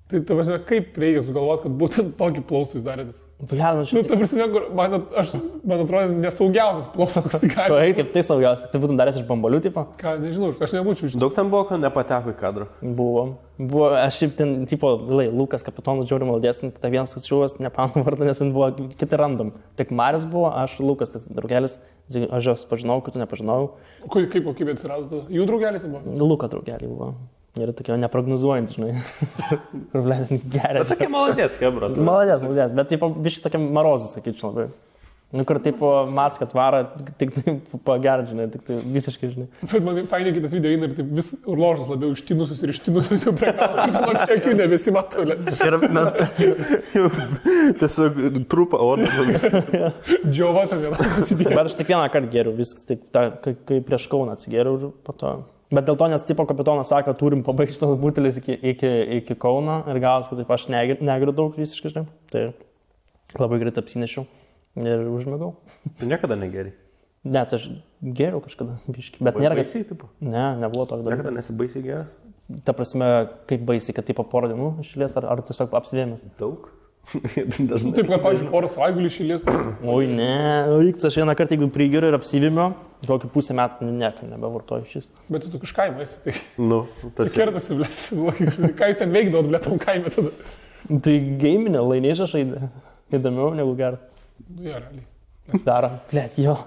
[SPEAKER 3] Tai, kaip reikia sugalvoti, kad būtent tokį plaustų jūs darėtis?
[SPEAKER 1] Blet,
[SPEAKER 3] ta prasme, man atrodo nesaugiausias plaustas, koks tik gali.
[SPEAKER 1] Oi, kaip tai saugiausias? Tai būtum daręs iš bambalių tipo?
[SPEAKER 3] Ką, nežinau, aš nebūčiau iš...
[SPEAKER 2] Daug ten buvo, kad nepateko į kadrą?
[SPEAKER 1] Buvo, aš šiaip ten, tipo, Lukas kapitonas žiauri maldės, tai vienas atšiuvas, nepamenu vardą, nes ten buvo kiti random. Tik Maris buvo, aš Lukas, tik draugelis, aš jos pažinau, kitų nepažinau.
[SPEAKER 3] Kaip kokybė atsirado? Jų draugelį tai buvo?
[SPEAKER 1] Luka draugelį buvo. Ir tokia neprognozuojant, žinai. Gerai.
[SPEAKER 2] Bet tokia maladės, kebra.
[SPEAKER 1] Maladės, bet tipo, biškai tokia marozas, sakyčiau, labai. Nu, kur tipo maską tvara, tik taip pagerti, žinai, tik tai visiškai, žinai.
[SPEAKER 3] Bet man fainai kitas video eina ir taip vis urložas labiau ištinusius jau prie galo, ir man čia akių nebesimato.
[SPEAKER 1] Ir mes...
[SPEAKER 2] Tiesiog trupa odą.
[SPEAKER 3] Džiova tam vienas atsidėjo.
[SPEAKER 1] Bet aš tik vieną kartą geriau, viskas taip, kai prieš Kauną atsigeriau ir po to... Bet dėl to, nes tipo kapitonas sako, turim pabaigti tas butelis iki Kauno ir gavas, kad taip aš negeriu daug visiškai, žinai. Tai labai greitai apsinešiau ir užmigau.
[SPEAKER 2] Tu niekada negeri?
[SPEAKER 1] Ne, tai aš geriau kažkada, biškai. Bet nėra...
[SPEAKER 2] Baisiai, tipo?
[SPEAKER 1] Ne, nebuvo tokio dalyko.
[SPEAKER 2] Niekada nesi baisiai geras?
[SPEAKER 1] Ta prasme, kaip baisiai, kad tipo porą dienų išėlės ar tiesiog apsivėmės?
[SPEAKER 2] Daug?
[SPEAKER 3] Dažnai. Taip, kad, pavyzdžiui, porą savaitgalių išėlės.
[SPEAKER 1] Oi, ne, aš vieną kartą, jeigu prigeriu ir apsivėmiu, kokį pusę metų niekam nebevartoju šis.
[SPEAKER 3] Bet tu iš kaimo esi, tai...
[SPEAKER 2] Nu,
[SPEAKER 3] tas... Tai kertasi, blėt. Ką jūs ten veikdavot, blėt, tam kaime tada?
[SPEAKER 1] Tai gaiminė, laimėžą žaidė. Įdomiau negu gerai.
[SPEAKER 3] Nu, jo, realiai.
[SPEAKER 1] Daro, blėt, jo.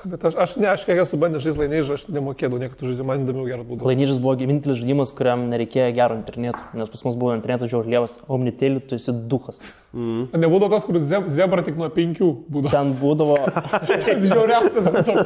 [SPEAKER 3] Bet aš kiek esu bandęs žaisti laimėžą, aš nemokėdavau niekada žaidimą, man įdomiau geras būdavo.
[SPEAKER 1] Laimėžas buvo vienintelis žaidimas, kuriam nereikėjo gero interneto, nes pas mus buvo internetas žiauriai lievas, omnitėlių, tu esi duchas.
[SPEAKER 3] Nebūdavo tas, kur zebra tik nuo 5 būdavo.
[SPEAKER 1] Ten būdavo...
[SPEAKER 3] Tai žiauriausias būdavo.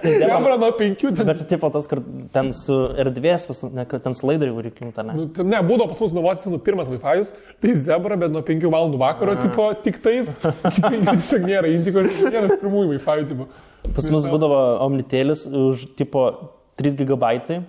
[SPEAKER 3] Zebra nuo 5.
[SPEAKER 1] Bet tipo tas, kur ten su erdvės, ten su laidariu varikliu, ne?
[SPEAKER 3] Ne, būdavo pas mus nuvocis pirmas Wi-Fi'us, tai zebra, bet nuo 5 valandų vakaro, tipo, tik tais, iki 5 tiesiog nėra, indiko, vienas pirmųjų Wi-Fi'ų, tipo.
[SPEAKER 1] Pas mus būdavo omnitėlis už, tipo, 3 GB,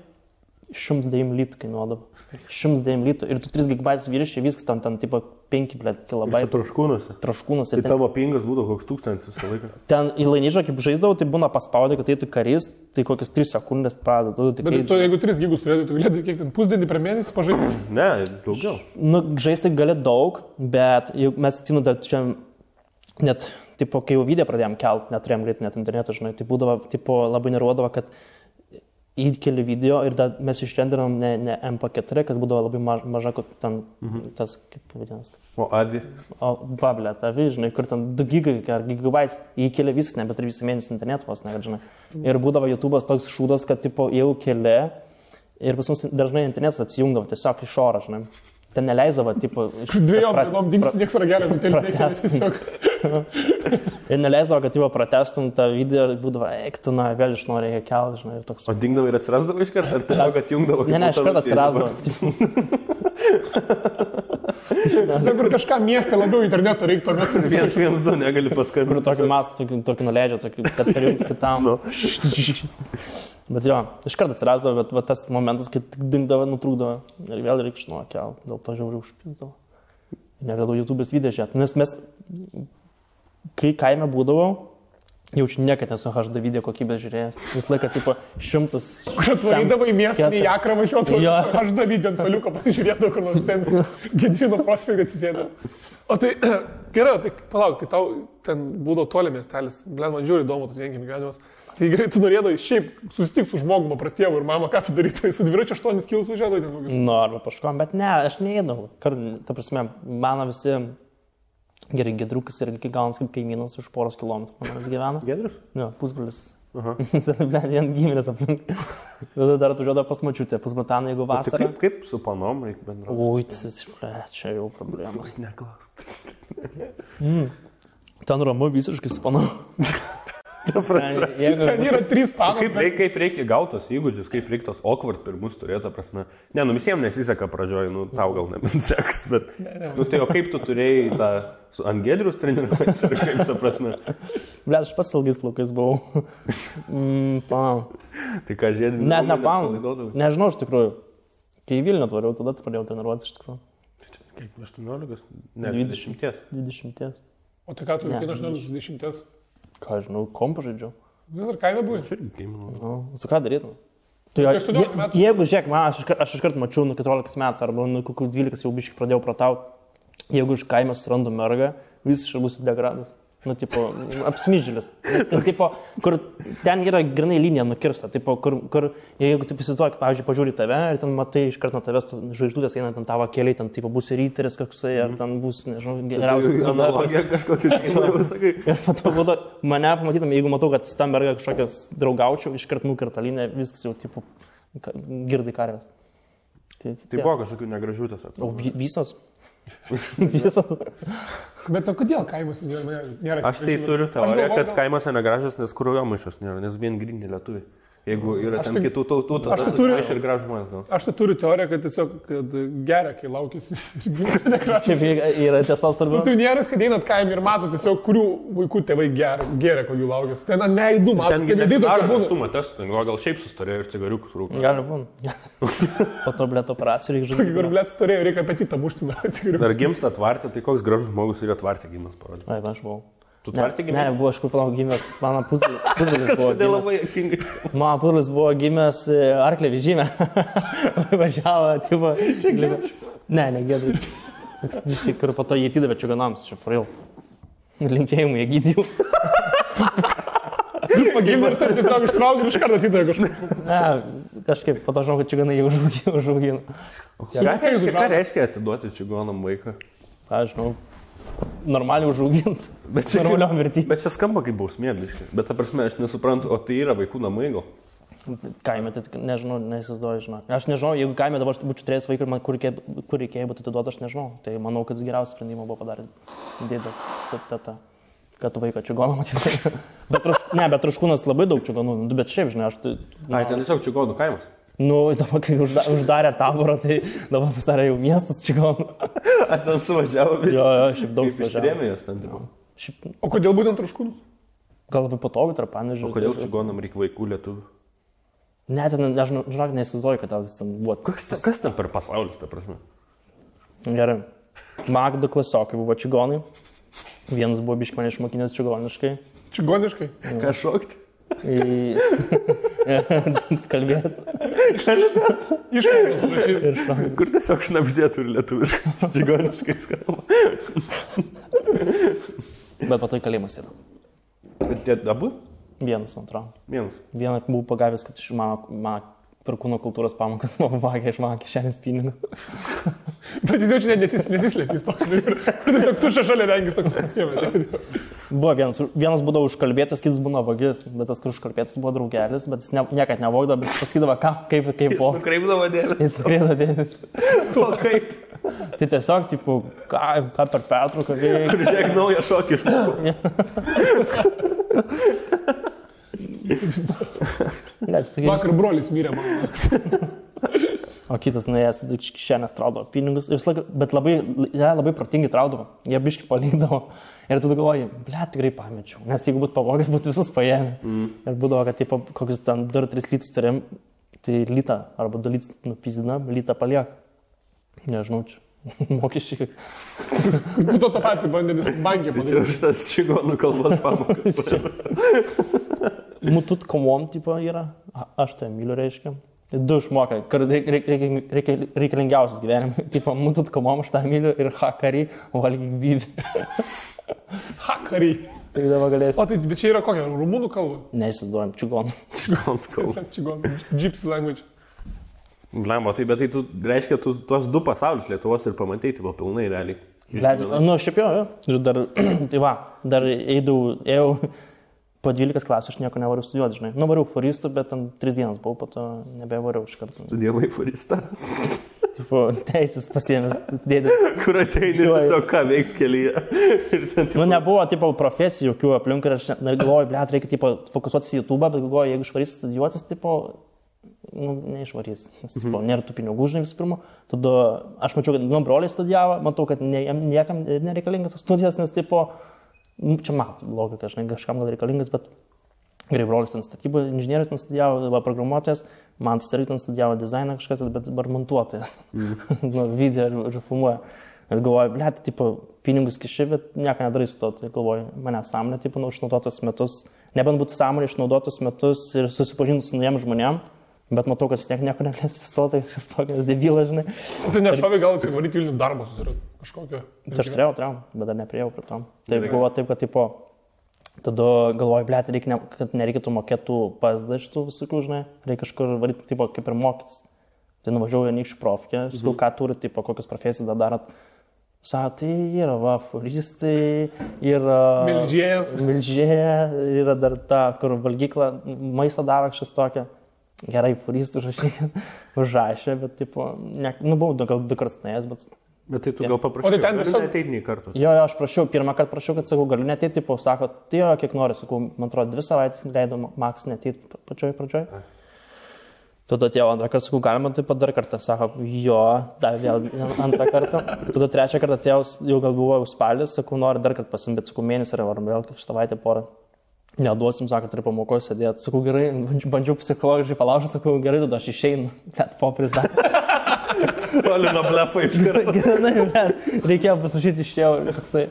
[SPEAKER 1] 109 litų kainuodavo. 109 litų ir tu 3 GB vyriškai, viskas ten tipo 5 kilobaitų.
[SPEAKER 2] Traškūnuose.
[SPEAKER 1] Traškūnuose.
[SPEAKER 2] Tai tavo pingas būdavo koks 1000 visą laiką.
[SPEAKER 1] Ten į lainyžą, kaip žaisdavau, tai būna paspaudė, kad eitų karys, tai kokias 3 sekundės pradeda.
[SPEAKER 3] Bet tu, jeigu 3 gigus turėtum, tu galėtum kiek ten pusdienį per mėnesį pažaisti?
[SPEAKER 2] Ne, daugiau.
[SPEAKER 1] Nu, žaisti gali daug, bet mes atsimenu, dar čia net, tipo, kai jau video pradėjom kelt, neturėjom greitai net interneto, žinai, tai būdavo, tipo, labai nervuodavo, kad įkeli video ir mes išrendinom ne MP4, kas būdavo labai maža, kad ten tas, kaip vadinasi.
[SPEAKER 2] O AVI?
[SPEAKER 1] O vablėt, AVI, žinai, kur ten 2 gigai ar gigabaitais įkeli viskas, ne, bet ir visą mėnesį internetu vos, ne, žinai. Ir būdavo YouTube'as toks šūdas, kad, tipo, jau keli ir pas mus dažnai internetas atsijungdavo tiesiog iš oro, žinai. Ten neleisdavo, tipo...
[SPEAKER 3] 2 dienom dings nieks ragelio, tiesiog.
[SPEAKER 1] Ir neleisdavo, kad jau pratestum tą video ir būdavo, tu, na, vėl iš nori reikia kelti, žinai, ir toks...
[SPEAKER 2] O dingdavo ir atsirasdavo iš karto, ar tiesiog atjungdavo?
[SPEAKER 1] Ne, iš karto atsirasdavo.
[SPEAKER 3] Kur kažką mieste labiau interneto reiktų, ar net
[SPEAKER 2] 112 negali paskambinti.
[SPEAKER 1] Kur tokį mastą, tokį nuleidžia, kad perjungti kitam. Bet jo, iš karto atsirasdavo, bet tas momentas, kai tik dingdavo, nutrūkdavo ir vėl reikia iš nuo kelti, dėl to žiauriai užpildavo. Negalėjau YouTube'ės video žiūrėti, nes mes, kai kaime būdavau, jaučiu niekad nesu HD video kokybės žiūrėjęs. Vis laiką, tipo, 100...
[SPEAKER 3] Kur atvarydavo į miestą, į Akrą važiuotų, HD video ant soliuko pasižiūrėdavo, kur nors centre, Gedvino prospektą atsisėdavo. O tai, gerai, tai palauk, tai tau ten būdavo toli miestelis, man žiūri įdomu tas vienkiemio gyvenimas. Tai gerai, tu norėdavai šiaip susitikti su žmogumi, pratėvu ir mama, ką tu darytai, su dviračiu 8 kilus važiuodavai ten kokius?
[SPEAKER 1] Nu, arba paškom, bet ne, aš neėdavau. Ta prasme, mano visi... Gerai, Gedrukas yra gaunas kaip kaimynas už poros kilometrų, manas gyvena.
[SPEAKER 2] Gedrus?
[SPEAKER 1] Ne, pusbrolis. Vien giminės aplink. Tada dar atvažiuodavo pas močiutę, pusbrataną, jeigu vasarą.
[SPEAKER 2] Tai kaip su panom reikia bendrauti?
[SPEAKER 1] Ui, čia jau problemos.
[SPEAKER 2] Neklausk.
[SPEAKER 1] Ten ramu visiškai su panom.
[SPEAKER 3] Ten yra 3 panos.
[SPEAKER 2] Kaip reikia gautos įgūdžius, kaip reikia tos awkward pirmus turėti, prasme. Ne, nu visiems nesiseka pradžioj, nu tau gal nebenseks, bet... Nu tai o kaip tu turėjai tą su ant Gedrius treniruotis ir kaip ta prasme?
[SPEAKER 1] Blet, aš pas ilgais plaukais buvau.
[SPEAKER 2] Tai ką žiedinį?
[SPEAKER 1] Net ne panų. Nežinau iš tikrųjų. Kai į Vilnių atvariau, tada pradėjau treniruotis iš tikrųjų.
[SPEAKER 2] Kiek, 18? Ne,
[SPEAKER 1] 20. 20.
[SPEAKER 3] O tai ką tu veikė 18-20?
[SPEAKER 1] Ką žinau, kompą žaidžiau.
[SPEAKER 3] Ar kaime buvai?
[SPEAKER 2] Aš irgi kaiminu.
[SPEAKER 1] Nu, su ką darytum? Tai jeigu, žiūrėk, man, aš iškart mačiau nuo 14 metų, arba nuo kokių 12 jau biškai pradėjau pratauti. Jeigu iš kaime surandu mergą, visiškai būsiu degradas. Nu, tipo, apsmyžėlis. Tipo, kur ten yra grinai linija nukirsta. Tipo, kur jeigu taip įsivaizduoji, pavyzdžiui, pažiūri tave ir ten matai iš karto nuo tavęs žvaigždutės eina ten tavo keliai, ten tipo bus ryteris koksai, ar ten bus, nežinau, geriausias.
[SPEAKER 2] Tai analogija kažkokiu keliu, sakai.
[SPEAKER 1] Ir po to būtų, mane pamatytum, jeigu matau, kad tam merga kažkokias draugaučiau, iš karto nukerta liniją, viskas jau, tipo, girdai karvės.
[SPEAKER 2] Tai buvo kažkokių negražių tiesiog.
[SPEAKER 1] O visos? Visos.
[SPEAKER 3] Bet o kodėl kaimuose nėra?
[SPEAKER 2] Aš tai turiu teoriją, kad kaimuose negražas, nes kraujomaišos nėra, nes vien gryni lietuviai. Jeigu yra ten kitų tautų, tada aš ir gražų žmonės.
[SPEAKER 3] Aš tai turiu teoriją, kad tiesiog geria, kai laukėsi ir gimsta negražas.
[SPEAKER 1] Šiaip yra tiesos turbūt.
[SPEAKER 3] Tu nėra, kad einat kaimį ir mato tiesiog, kurių vaikų tėvai geria, kol jų laukėsi. Ten neįdu, mato.
[SPEAKER 2] Ten nesidaro neštumą testų, gal šiaip sustarėjo ir cigariukus rūko.
[SPEAKER 1] Gali būti. Po to blėt operacijų reikia
[SPEAKER 3] žaisti. Kur blėt storėjo, reikia apetitą mušti nuo cigariukus.
[SPEAKER 2] Ar gimsta atvartė, tai koks gražus žmogus yra atvartė gimas parodė.
[SPEAKER 1] Ai, aš buvau.
[SPEAKER 2] Tu tvartė gimęs?
[SPEAKER 1] Ne, buvo aš kur palauk gimęs, mano pusbrolis buvo
[SPEAKER 2] gimęs. Labai juokingai.
[SPEAKER 1] Mano pusbrolis buvo gimęs arklė vežime. Važiavo, tipo... Ne, Gedriui. Ir po to jį atidavė čigonams, čia for real. Linkėjimų jie gydijų.
[SPEAKER 3] Pagimė ir tai tiesiog ištraukė ir iš karto atidavė kažkaip.
[SPEAKER 1] Ne, kažkaip, po to žinau, kad čigonai jį užaugino.
[SPEAKER 2] Ką reiškia atiduoti čigonam vaiką?
[SPEAKER 1] Aš žinau. Normaliai užauginti, normaliom vertybėm.
[SPEAKER 2] Bet čia skamba kaip bausmė, biškai. Bet ta prasme, aš nesuprantu, o tai yra vaikų namai gal?
[SPEAKER 1] Kaime, tai nežinau, neįsivaizduoju, žinok. Aš nežinau, jeigu kaime dabar būčiau turėjęs vaiką ir man kur reikėjo būti atiduoti, aš nežinau. Tai manau, kad geriausią sprendimą buvo padaręs dėdė su teta, kad vaiką čigoną matyti. Bet Traškūnas labai daug čigonų, bet šiaip, žinai, aš tai...
[SPEAKER 2] Ai, ten tiesiog čigonų kaimas.
[SPEAKER 1] Nu, dabar, kai uždarė taborą, tai dabar pasidarė jau miestas čigonų.
[SPEAKER 2] Ar ten suvažiavo visi?
[SPEAKER 1] Jo, šiaip daug suvažiavo.
[SPEAKER 2] Ištrėmė jos ten, tipo.
[SPEAKER 3] O kodėl būtent Traškūnus?
[SPEAKER 1] Gal labai patogu tarp Panevėžio.
[SPEAKER 2] O kodėl čigonam reikia vaikų lietuvių?
[SPEAKER 1] Ne, ten, aš žinok, neįsivaizduoju, kad ten buvo.
[SPEAKER 2] Kas ten per pasaulis, ta prasme?
[SPEAKER 1] Gerai. Magdo klasiokai buvo čigonai. Vienas buvo biškai mane išmokinęs čigoniškai.
[SPEAKER 3] Čigoniškai?
[SPEAKER 2] Ką šokti?
[SPEAKER 1] Skalbėti.
[SPEAKER 3] Išmokos prašyti.
[SPEAKER 2] Kur tiesiog šnapždėtų ir lietuviškai, čigoniškai skamba.
[SPEAKER 1] Bet po to į kalėjimas yra.
[SPEAKER 2] Bet tie abu?
[SPEAKER 1] Vienas, man atrodo.
[SPEAKER 2] Vieną
[SPEAKER 1] buvau pagavęs, kad iš mano per kūno kultūros pamokas man pavagė iš mano kišenės pinigų.
[SPEAKER 3] Bet jis jau čia nesislėpė, jis toks. Tiesiog tušia šalia rengis toks pasiėmė.
[SPEAKER 1] Buvo vienas būdavo užkalbėtas, kitas būna vagis, bet tas, kur užkalbėtas buvo draugelis, bet jis niekad nevogdavo, bet pasakydavo, kaip po.
[SPEAKER 2] Jis nukreipdavo dėmesį.
[SPEAKER 1] Jis nukreipdavo dėmesį.
[SPEAKER 2] Tuo kaip?
[SPEAKER 1] Tai tiesiog, tipo, ką per pertrauką veikia.
[SPEAKER 2] Kur žiūrėk naują šokį išmokau.
[SPEAKER 3] Vakar brolis mirė man.
[SPEAKER 1] O kitas nuėjęs, tai kišenės traudavo pinigus, bet labai protingai traudavo, jie biškai palikdavo. Ir tu galvoji, tikrai pamečiau, nes jeigu būtų pavogęs, būtų visus paėmę. Ir būdavo, kad tipo, kokius ten 2-3 litus turėjom, tai litą arba 2 litus nupizidinam, litą paliek. Nežinau, čia mokesčiai.
[SPEAKER 3] Būtų tą patį bandėlis bankė
[SPEAKER 2] padaryti. Čia už tas čigonų kalbos pamokas.
[SPEAKER 1] Mutut komom tipo yra, aš tai myliu reiškia. 2 išmokai, kur reikalingiausias gyvenime. Tipo, mutut komom aš tą myliu ir hakari, valgyk bybį.
[SPEAKER 3] Hakari.
[SPEAKER 1] Tai dabar galėsi.
[SPEAKER 3] O tai, bet čia yra kokia, rumunų kalba?
[SPEAKER 1] Neįsivaizduojam, čigonų.
[SPEAKER 2] Čigonų kalba.
[SPEAKER 3] Čigonų, gypsy language.
[SPEAKER 2] Blemba, tai bet tai tu, reiškia, tu tuos 2 pasaulius Lietuvos ir pamatai, tai buvo pilnai realiai.
[SPEAKER 1] Nu, šiaip jo. Ir dar, tai va, dar ėjau po 12 klasių, aš nieko nevariau studijuoti, žinai. Nuvariau foristų, bet ten 3 dienas buvau, po to nebevariau iš karto.
[SPEAKER 2] Studijavai foristą?
[SPEAKER 1] Tipo, teisės pasiėmęs dėdė.
[SPEAKER 2] Kur ateini tiesiog ką veikti kelyje.
[SPEAKER 1] Nu, nebuvo, tipo, profesijų jokių aplink ir aš galvoju, reikia, tipo, fokusuotis į YouTube, bet galvoju, jeigu išvarys studijuotis, tipo, neišvarys. Nes, tipo, nėra tų pinigų, žinai, visų pirma. Tada aš mačiau, kad broliai studijavo, matau, kad niekam nereikalingas studijas, nes, tipo, čia matų logika, žinai, kažkam gal reikalingas, bet gerai, brolis ten statybų inžinierius ten studijavo, programuotojas, man irgi ten studijavo dizainą kažkas, bet dabar montuotojas. Video ir filmuoja. Ir galvoju, tipo, pinigus kiši, bet nieko nedarysiu to. Tai galvoju, mane sąmonė, tipo, išnaudotus metus, nebent būtų sąmonė išnaudotus metus ir susipažinti su naujiem žmonėm, bet matau, kad vis tiek nieko negalės įstoti, šis tokias debilas, žinai.
[SPEAKER 3] Tai nešovė gal atsivaryti Vilnių darbą susirasti kažkokią?
[SPEAKER 1] Tai aš turėjau, bet dar nepriejau prie to. Tai buvo taip, kad, tipo, tada galvoju, kad nereikėtų mokėtų PSD šitų visokių, žinai, reikia kažkur varyti, tipo, kaip ir mokytis. Tai nuvažiavau Anykščių profkę, sakau, ką turi, tipo, kokias profesijas dar darot. Sako, tai yra furistai, yra milžėja, yra dar ta, kur valgykla maistą daro kažkas tokia. Gerai, furistų užrašė, bet, tipo, buvau gal 2 kartus nuėjęs, bet...
[SPEAKER 2] Bet tai tu gal paprašai,
[SPEAKER 3] o tai ten
[SPEAKER 2] tiesiog ateiti nei kartų?
[SPEAKER 1] Jo, aš prašiau, pirmą kartą prašiau, kad, sakau, galiu neteiti, tipo, sako, tai jo, kiek nori, sakau, man atrodo, 2 savaitės leido maks neteiti pačioj pradžioj. Tada atėjau 2 kartą, sakau, galima taip pat dar kartą, sako, jo, dar vėl 2 kartą. Tada 3 kartą atėjau, jau gal buvo spalis, sakau, nori dar kartą pasimti, bet, sakau, mėnesį ar vėl savaitę porą. Neduosim, sako, turi pamokos sėdėti. Sakau, gerai, bandžiau psichologiškai palaužti, sakau, gerai, tada aš išeinu, bet popris dar.
[SPEAKER 2] Olino blefą iš karto.
[SPEAKER 1] Gerai, reikėjo pasirašyti iš jau ir toksai.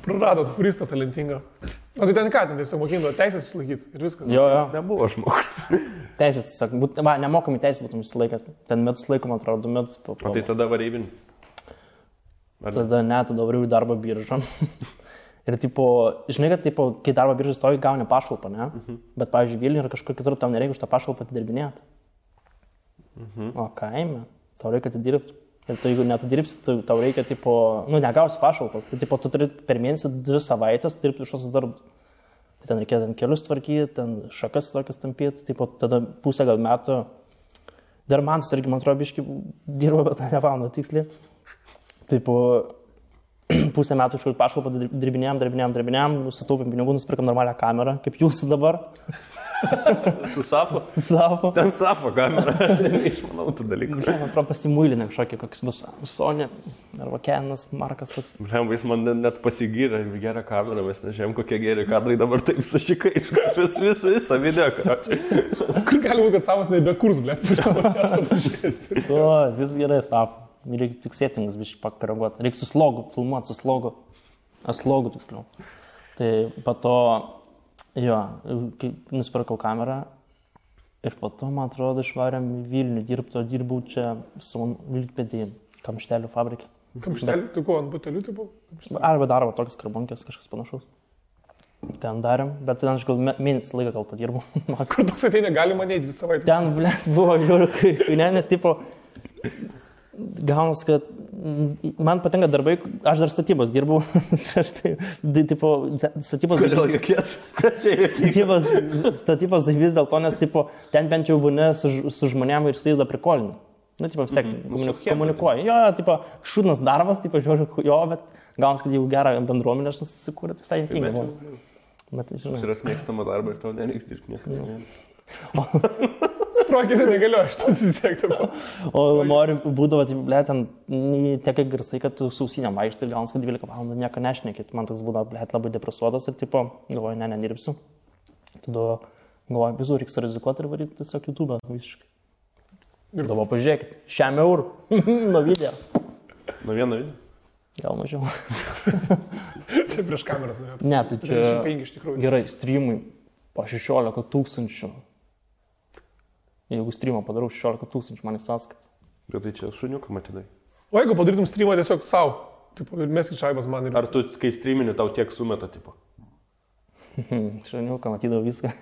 [SPEAKER 3] Praradot furistą talentingą. O tai ten ką, ten tiesiog mokindavo teisės išlaikyti ir viskas.
[SPEAKER 1] Jo.
[SPEAKER 2] Nebuvo žmogus.
[SPEAKER 1] Teisės, tiesiog, nemokami teisės būtum išsilaikęs. Ten metus laiko, man atrodo, 2 metus.
[SPEAKER 2] O tai tada varybin?
[SPEAKER 1] Tada ne, tada variau į darbo biržą. Ir, tipo, žinai, kad, tipo, kai darbo biržai stovi, gauni pašalpą, ne? Bet, pavyzdžiui, Vilniuje yra kažkur kitur, tau nereikia už tą pašalpą atidirbinėti. O kaime, tau reikia atidirbti. Ir tu, jeigu neatidirbsi, tau reikia, tipo, negausi pašalpos. Tai, tipo, tu turi per mėnesį 2 savaitės dirbti iš tos darbus. Ten reikėjo ten kelius tvarkyti, ten šakas tokias tampyti, tipo, tada pusę gal metų. Dar man irgi, man atrodo, biškai dirbo, bet nepamenu tiksliai. Tipo, pusę metų iš pašalpą dirbinėjom, susitaupėm pinigų, nusipirkam normalią kamerą, kaip jūsų dabar.
[SPEAKER 2] Su Safo?
[SPEAKER 1] Safo.
[SPEAKER 2] Ten Safo kamera, aš neišmanau tų dalykų.
[SPEAKER 1] Man atrodo, pasimuilinė kažkokia, koks bus Sony, arba Canas, Markas koks.
[SPEAKER 2] Jis man net pasigyrė gerą kamerą, mes nežinom, kokie geri kadrai dabar taip sušikai, visą video, karočiui.
[SPEAKER 3] Kur gali būti, kad Safas nebekurs, blėt, prieš tavo testą pasižiūrėti.
[SPEAKER 1] O, vis gerai, Safo. Reikia tik settingus biškai pakoreguoti. Reikia su slogu, filmuoti su slogu. Slogu tiksliau. Tai po to, jo, nusipirkau kamerą ir po to, man atrodo, išvarėm į Vilnių dirbau čia su Vilkpėdį, kamštelių fabrikė.
[SPEAKER 3] Kamštelių? Tu ko, ant butelių tai buvo?
[SPEAKER 1] Arba darbo tokias karbonkės, kažkas panašaus. Ten darėm, bet ten aš gal mėnesį laiką gal padirbau.
[SPEAKER 3] Kur toks ateina, galima neiti 2 savaitės?
[SPEAKER 1] Ten, blėt, buvo žiūrėk, nes tipo, gaunas, kad man patinka darbai, aš dar statybos dirbau, prieš tai, tipo, statybos vis dėl to, nes, tipo, ten bent jau būni su žmonėm ir su jais dar prikolini. Nu, tipo, vis tiek komunikuoji. Jo, tipo, šūdnas darbas, tipo, žiūrėk, jo, bet gaunas, kad jau gerą bendruomenę aš susikūrė, tai visai juokinga buvo. Bet, žinai.
[SPEAKER 2] Yra mėgstama darba ir tau nereiks dirbti niekada.
[SPEAKER 3] Sprokėsi negaliu, aš tas vis tiek dabar.
[SPEAKER 1] O nori būdavo, blė, ten tiek garsai, kad tu sausinėm vaikštai ir gaunas, kad 12 valandų nieko nešnekėt. Man toks būdavo, blė, labai depresuotas ir tipo, galvoju, nedirbsiu. Tada galvoju, visų reiks rizikuoti ir varyti tiesiog YouTube visiškai. Ir dabar pažiūrėkit, 100 eurų nuo video.
[SPEAKER 2] Nuo vieno video?
[SPEAKER 1] Gal mažiau.
[SPEAKER 3] Čia prieš kameras norėjau.
[SPEAKER 1] Ne, tai čia
[SPEAKER 3] 5 iš tikrųjų.
[SPEAKER 1] Gerai, streamai po 16 000. Jeigu streamą padarau 16 000, man į sąskaitą.
[SPEAKER 2] Bet tai čia šuniuką matydai.
[SPEAKER 3] O jeigu padarytum streamą tiesiog savo, tipo, ir meskit šaibas man ir...
[SPEAKER 2] Ar tu, kai streamini, tau tiek sumeta, tipo?
[SPEAKER 1] Šuniuką matydavau viską.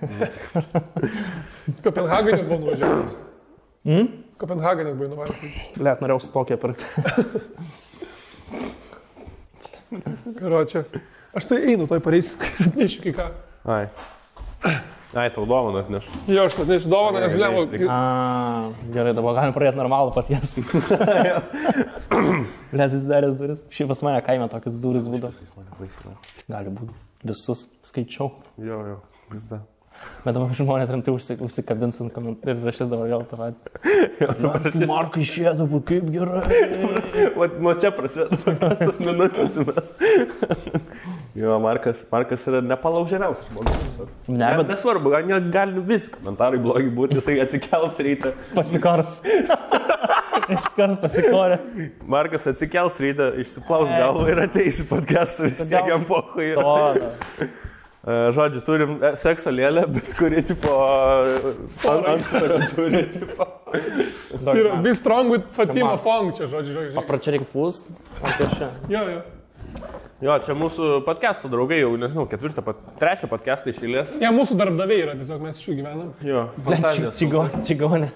[SPEAKER 3] Kopenhagenė buvo nuvažiavęs. Kopenhagenė buvo nuvažiavęs.
[SPEAKER 1] Blet, norėjau su tokia pirkti.
[SPEAKER 3] Karočią. Aš tai einu, toj pareisiu, atnešiu kai ką.
[SPEAKER 2] Ai, tau dovaną atnešu.
[SPEAKER 3] Jo, aš atnešiu dovaną, nes blemo...
[SPEAKER 1] Gerai, dabar galim pradėti normalų patiesti. Blet, atidaręs duris. Šiaip pas mane kaime tokias duris būdavo. Gali būti. Visus skaičiau.
[SPEAKER 2] Jo, vis da.
[SPEAKER 1] Bet dabar žmonės rimtai užsikabins ant komentarų ir rašys dabar gal tą patį. Markai išėdavo, kaip gerai.
[SPEAKER 2] Nuo čia prasideda tas minutės mes. Jo, Markas yra nepalaužiamiausias žmogus. Nesvarbu, gali visi komentarai blogi būti, jisai atsikels rytą.
[SPEAKER 1] Pasikors. Iškart pasikoręs.
[SPEAKER 2] Markas atsikels rytą, išsiplaus galvą ir ateis į podcastą, vis tiek jam pohui. Žodžiu, turim sekso lėlę, bet kuri, tipo, antsvarį turi, tipo.
[SPEAKER 3] Be strong with Fatima Fong, čia, žodžiu.
[SPEAKER 1] Papračia reikia pūst.
[SPEAKER 3] Jo.
[SPEAKER 2] Jo, čia mūsų podcast'o draugai jau, nežinau, 3 podcast'ą iš eilės.
[SPEAKER 3] Ne, mūsų darbdaviai yra, tiesiog mes iš jų gyvenam.
[SPEAKER 2] Jo, fantazijos.
[SPEAKER 1] Čigonė.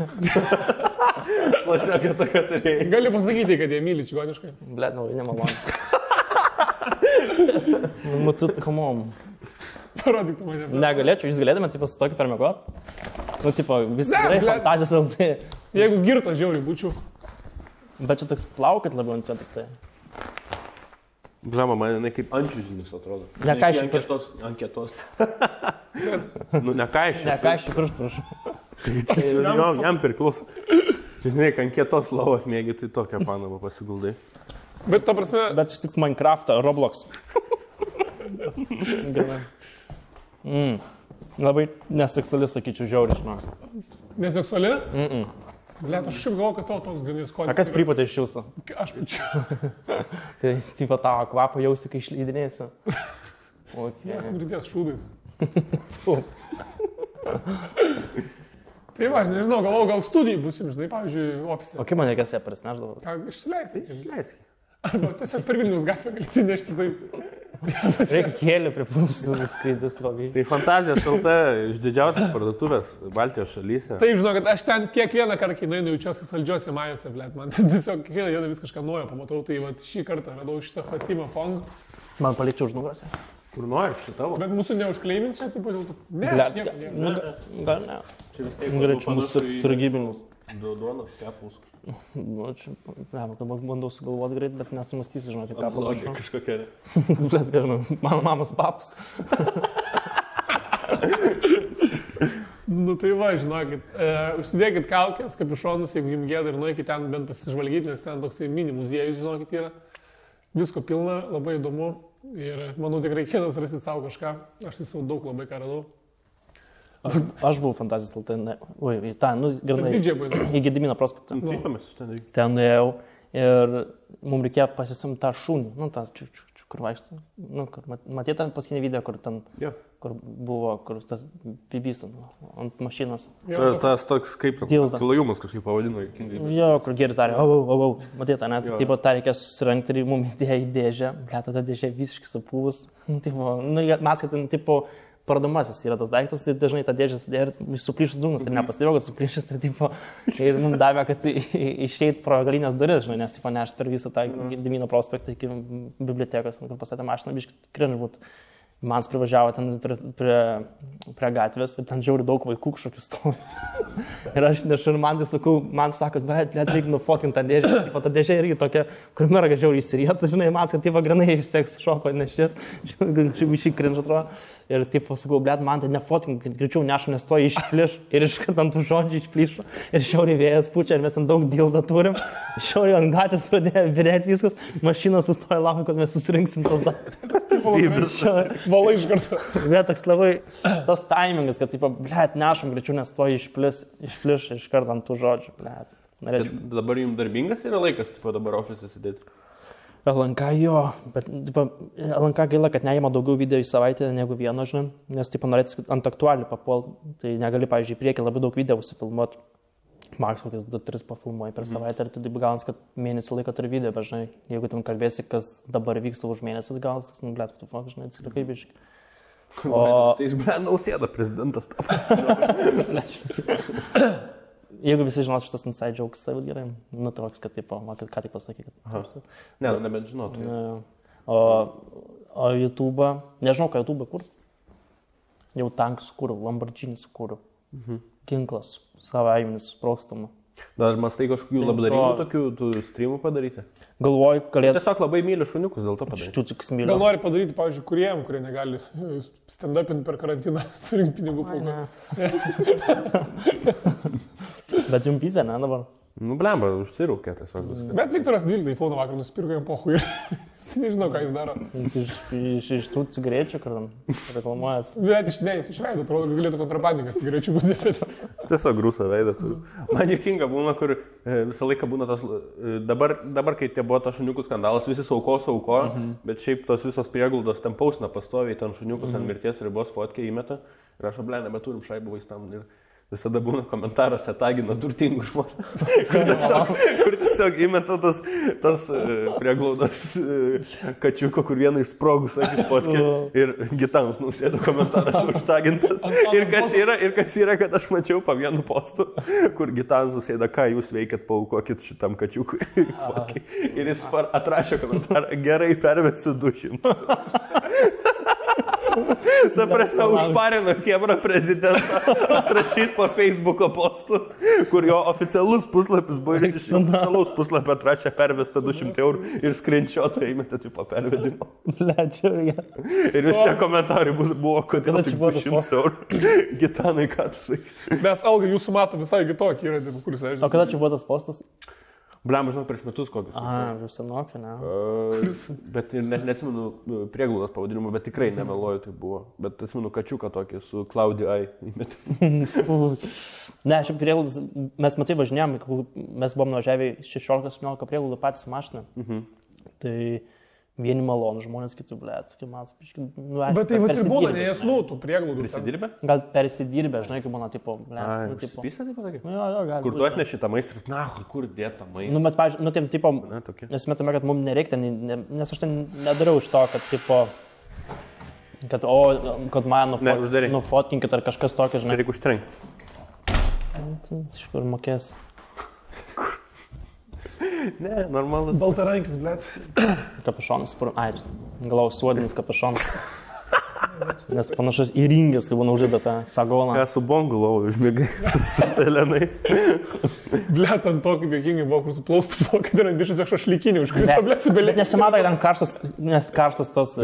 [SPEAKER 2] Plašiokia tokia turėjai.
[SPEAKER 3] Gali pasakyti, kad jie myli čigoniškai.
[SPEAKER 1] Blet, nemalonu. Matut, come on.
[SPEAKER 3] Parodyk tu mane.
[SPEAKER 1] Negalėčiau, jūs galėtume, tipo, su tokiu permiegot? Nu, tipo, visi gerai, fantazijos LT.
[SPEAKER 3] Jeigu girtas žiauriai būčiau.
[SPEAKER 1] Bet čia toks plaukat labiau ant jo tik tai.
[SPEAKER 2] Blema, man jinai kaip ančiužinis atrodo.
[SPEAKER 1] Nekaišiu
[SPEAKER 2] Ankietos. Nu, nekaišiu
[SPEAKER 1] pirštų, prašau.
[SPEAKER 2] Jam priklauso. Žinai, ankietos lovas mėgi, tai tokią panamą pasiguldai.
[SPEAKER 3] Bet ta prasme...
[SPEAKER 1] Bet iš tiks Minecraftą, Roblox. Labai neseksuali, sakyčiau, žiauriai, žinau.
[SPEAKER 3] Neseksuali? Blet, aš šiaip galvoju, kad tavo toks ganės skonis.
[SPEAKER 1] A kas pripatė iš jūsų?
[SPEAKER 3] Aš pačiu.
[SPEAKER 1] Tai, tipo, tavo kvapą jausi, kai išleidinėsiu.
[SPEAKER 3] Mes mridės šūdais. Tai va, aš nežinau, galvoju, gal studijai busim, žinai, pavyzdžiui, ofise.
[SPEAKER 1] O kaip man reikės ją prisneždavo?
[SPEAKER 3] Ką, išsileisti. Arba tiesiog per Vilniaus gatvę galėsi neštis taip.
[SPEAKER 1] Reikia kėlių pripūstų, skraidys labai.
[SPEAKER 2] Tai Fantazijos LT iš didžiausias parduotuvės Baltijos šalyse.
[SPEAKER 3] Taip, žinau, kad aš ten kiekvieną kartą, kai nueinu, jaučiuosi saldžiuose majose, blėt. Man tiesiog kiekvieną dieną vis kažką naujo pamatau. Tai va, šį kartą radau šitą Fatima Fong.
[SPEAKER 1] Man palikčiau už nugarą.
[SPEAKER 2] Kur nori, šitavo.
[SPEAKER 3] Bet mūsų neužkleimins čia, taip pat dėl to. Ne,
[SPEAKER 1] gal ne.
[SPEAKER 2] Čia vis tiek.
[SPEAKER 1] Greičiau mūsų sargybinis.
[SPEAKER 2] Duonos, kepulus kažkas.
[SPEAKER 1] Nu, čia, dabar bandau sugalvoti greit, bet nesumastysiu, žinokit, ką palašau.
[SPEAKER 2] Kažkokia.
[SPEAKER 1] Bet, žinau, mano mamos papus.
[SPEAKER 3] Nu tai va, žinokit, užsidėkit kaukės, kapišonus, jeigu jums gėda ir nueikit ten bent pasižvalgyti, nes ten toksai mini muziejus, žinokit, yra. Visko pilna, labai įdomu ir manau tikrai kiekvienas rasit savo kažką. Aš tai savo daug labai ką radau.
[SPEAKER 1] Aš buvau fantazijos LT, oi, grinai, į Gedimino prospektą. Ten nuėjau ir mums reikėjo pasisimti tą šunį, nu, tas kur vaikštai, nu, kur matėte ten paskutinį video, kur ten, kur buvo, kur tas bibys ant mašinos.
[SPEAKER 2] Tas toks kaip klajumas kažkaip pavadino.
[SPEAKER 1] Jo, kur geris darė, matėte, net, taip pat tą reikėjo susirengti ir mums įdėjo į dėžę, blėta ta dėžė visiškai supūvus, mes, kad ten, tipo, parduomasis yra tas daiktas, tai dažnai tą dėžę sudėjo ir suplyšus dūmus ir nepastebėjau, kad suplyšus ir mums davė, kad išeit pro galinės duris, žinai, nes nešt per visą tą Gedimino prospektą iki bibliotekos, kur pastatė mašiną, biškai krinž būt. Man privažiavo ten prie gatvės ir ten žiauri daug vaikų kažkokių stovi. Ir aš nešu ir man tai sakau, man sako, bet reikia nufotkinti tą dėžę. Ta dėžė irgi tokia, kur merga žiauri įsirietų, žinai, man, kad granai iš seks šopo nešės, čia šį krinž atrodo. Ir taip sakau, blėt, man tai nefotkink, greičiau nešu, nes to išpliš ir iškart ant tų žodžių išplišo. Ir šiauriai vėjas pučia ir mes ten daug dildą turim. Šiauriai ant gatvės pradėjo virėti viskas, mašina sustoja laukia, kad mes susirinksim tos daiktus.
[SPEAKER 3] Valai iš karto.
[SPEAKER 1] Bet toks labai tas taimingas, kad, blėt, nešam greičiau, nes to išpliš iš karto ant tų žodžių, blėt.
[SPEAKER 2] Dabar jums darbingas yra laikas, dabar ofise sėdėti?
[SPEAKER 1] LNK jo, bet LNK gaila, kad neima daugiau video į savaitę negu vieno, žinai, nes norėtis ant aktualių papol, tai negali, pavyzdžiui, į priekį labai daug video užsifilmuoti. Maks kokias 2-3 pafilmuoji per savaitę ir tu taip gaunas, kad mėnesį laiko turi video, bet žinai, jeigu ten kalbėsi, kas dabar vyksta už mėnesį, tai gaunas, nu, blėt, tu fok, žinai, atsilikai biškai.
[SPEAKER 2] Tai jis, blėt, Nausėda prezidentas tapo.
[SPEAKER 1] Jeigu visi žinos šitas inside jokes, tai gerai, nu toks, kad taip, ką tik pasakai.
[SPEAKER 2] Ne, nebent žinotų.
[SPEAKER 1] O YouTube, nežinau, ką YouTube kur. Jau tankus kūriau, Lamborghini kūriau. Ginklas, savaiminis, sprogstama.
[SPEAKER 2] Dar mastai kažkokių labdaringų tokių streamų padaryti?
[SPEAKER 1] Galvoju, galėtų...
[SPEAKER 2] Tiesiog labai myliu šuniukus, dėl to padaryti.
[SPEAKER 1] Ščiuciuks myliu.
[SPEAKER 3] Gal nori padaryti, pavyzdžiui, kuriem, kurie negali stand-upinti per karantiną, surinkti pinigų pulką.
[SPEAKER 1] Bet jums pizė, ne, dabar?
[SPEAKER 2] Nu, blemba, užsirūkė tiesiog viską.
[SPEAKER 3] Bet Viktoras 12 iPhone vakar nusipirko jam pohui ir nežinau, ką jis daro.
[SPEAKER 1] Iš tų cigarečių, kur reklamuojat?
[SPEAKER 3] Bet jis išveido, atrodo, kad galėtų kontrabandininkas cigarečių būti nepėta.
[SPEAKER 2] Tiesiog grūsą veidą turiu. Man juokinga būna, kur visą laiką būna tas, dabar kai tie buvo tas šuniukų skandalas, visi sauko, bet šiaip tos visos prieglaudos ten pausina pastoviai, ten šuniukus ant mirties ribos fotkę įmeta ir aš blė, nebeturim šaibų vaistam. Ir visada būna komentaruose tagina turtingų žmonės, kur tiesiog įmeta tos prieglaudos kačiuko, kur vieną išsprogus akis fotkę ir Gitanas Nausėda komentaras užtagintas. Ir kas yra, kad aš mačiau po vienu postu, kur Gitanas Nausėda, ką jūs veikiat, paaukokit šitam kačiukui fotkai. Ir jis atrašė komentarą, gerai pervesiu 200. Ta prasme, užparino Kebra prezidentą atrašyti po Facebooko postų, kur jo oficialus puslapis buvo ir iš oficialaus puslapio atrašė pervestą 200 eurų ir screenshotą įmetė tipo pervedimo. Ir vis tie komentarai buvo, kodėl tik 200 eurų. Gitanai, ką tu sakai?
[SPEAKER 3] Mes algą jūsų mato visai kitokį yra, kuris leidžia.
[SPEAKER 1] O kada čia buvo tas postas?
[SPEAKER 2] Blemba, žinau, prieš metus kokius.
[SPEAKER 1] Jau senokį, ne?
[SPEAKER 2] Bet net neatsimenu prieglaudos pavadinimą, bet tikrai nemeluoju, tai buvo. Bet atsimenu kačiuką tokį su Claudia I.
[SPEAKER 1] Ne, šiaip prieglaudas, mes matai važinėjom, mes buvom nuvažiavę 16-17 prieglaudų patys mašiną. Tai vieni malonų žmonės, kitų blėt, kaip mes,
[SPEAKER 3] bet tai va ir būna, nes tų prieglaudų.
[SPEAKER 2] Prisidirbę?
[SPEAKER 1] Gal persidirbę, žinai, kaip būna, tipo, blėt.
[SPEAKER 2] Užsipysę, taip pat?
[SPEAKER 1] Jo, gali.
[SPEAKER 2] Kur tu atneši tą maistą, na, kur dėta maistą?
[SPEAKER 1] Nu, mes, pavyzdžiui, tai, tipo, mes metame, kad mums nereikia, nes aš ten nedariau iš to, kad, tipo, kad mane nufotkinkit ar kažkas tokio, žinai.
[SPEAKER 2] Reikia užtrenkti.
[SPEAKER 1] Iš kur mokės.
[SPEAKER 2] Ne, normalus.
[SPEAKER 3] Baltarankis, blėt.
[SPEAKER 1] Kapišonas, galau suodinis kapišonas. Nes panašus į ringės, kai būna uždėta tą sagoną.
[SPEAKER 2] Esu bongų lovų užmėgai su pelenais.
[SPEAKER 3] Blet, ant to, kaip jokingai buvo, kur suplaustų plaukai, tai yra bišas šašlykinį, užkrito, blet, su belė.
[SPEAKER 1] Nesimato, kad ten karštas tos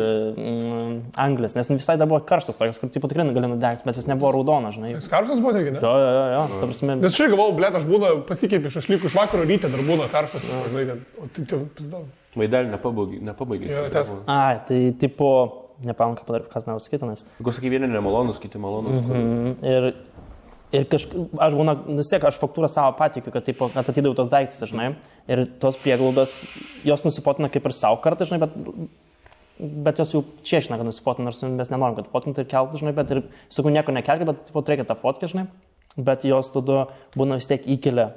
[SPEAKER 1] anglis, nes visai dar buvo karštas tokios, kur tipo tikrai gali nudegti, bet jis nebuvo raudona, žinai.
[SPEAKER 3] Jis karštas buvo, negi, ne?
[SPEAKER 1] Jo, ta prasme.
[SPEAKER 3] Nes šiai galvau, blet, aš būna pasikeipi šašlykų iš vakaro ryte, dar būna karštas, žinai, o tai jau pizdau.
[SPEAKER 2] Vaidelį nepabaigė.
[SPEAKER 1] Ai, tai tipo, nepamenu, kas noriu sakyti, nes.
[SPEAKER 2] Kur sakai, vieni nemalonus, kiti malonus.
[SPEAKER 1] Ir aš būna, vis tiek, aš faktūrą savo patikiu, kad atidėjau tos daiktus, žinai, ir tos prieglaudos, jos nusifotina kaip ir savo kartą, žinai, bet jos jau čiešina, kad nusifotina, nors mes nenorim, kad fotinti ir kelti, žinai, bet ir, sakau, nieko nekelti, bet reikia tą fotkę, žinai, bet jos tada būna vis tiek įkelia.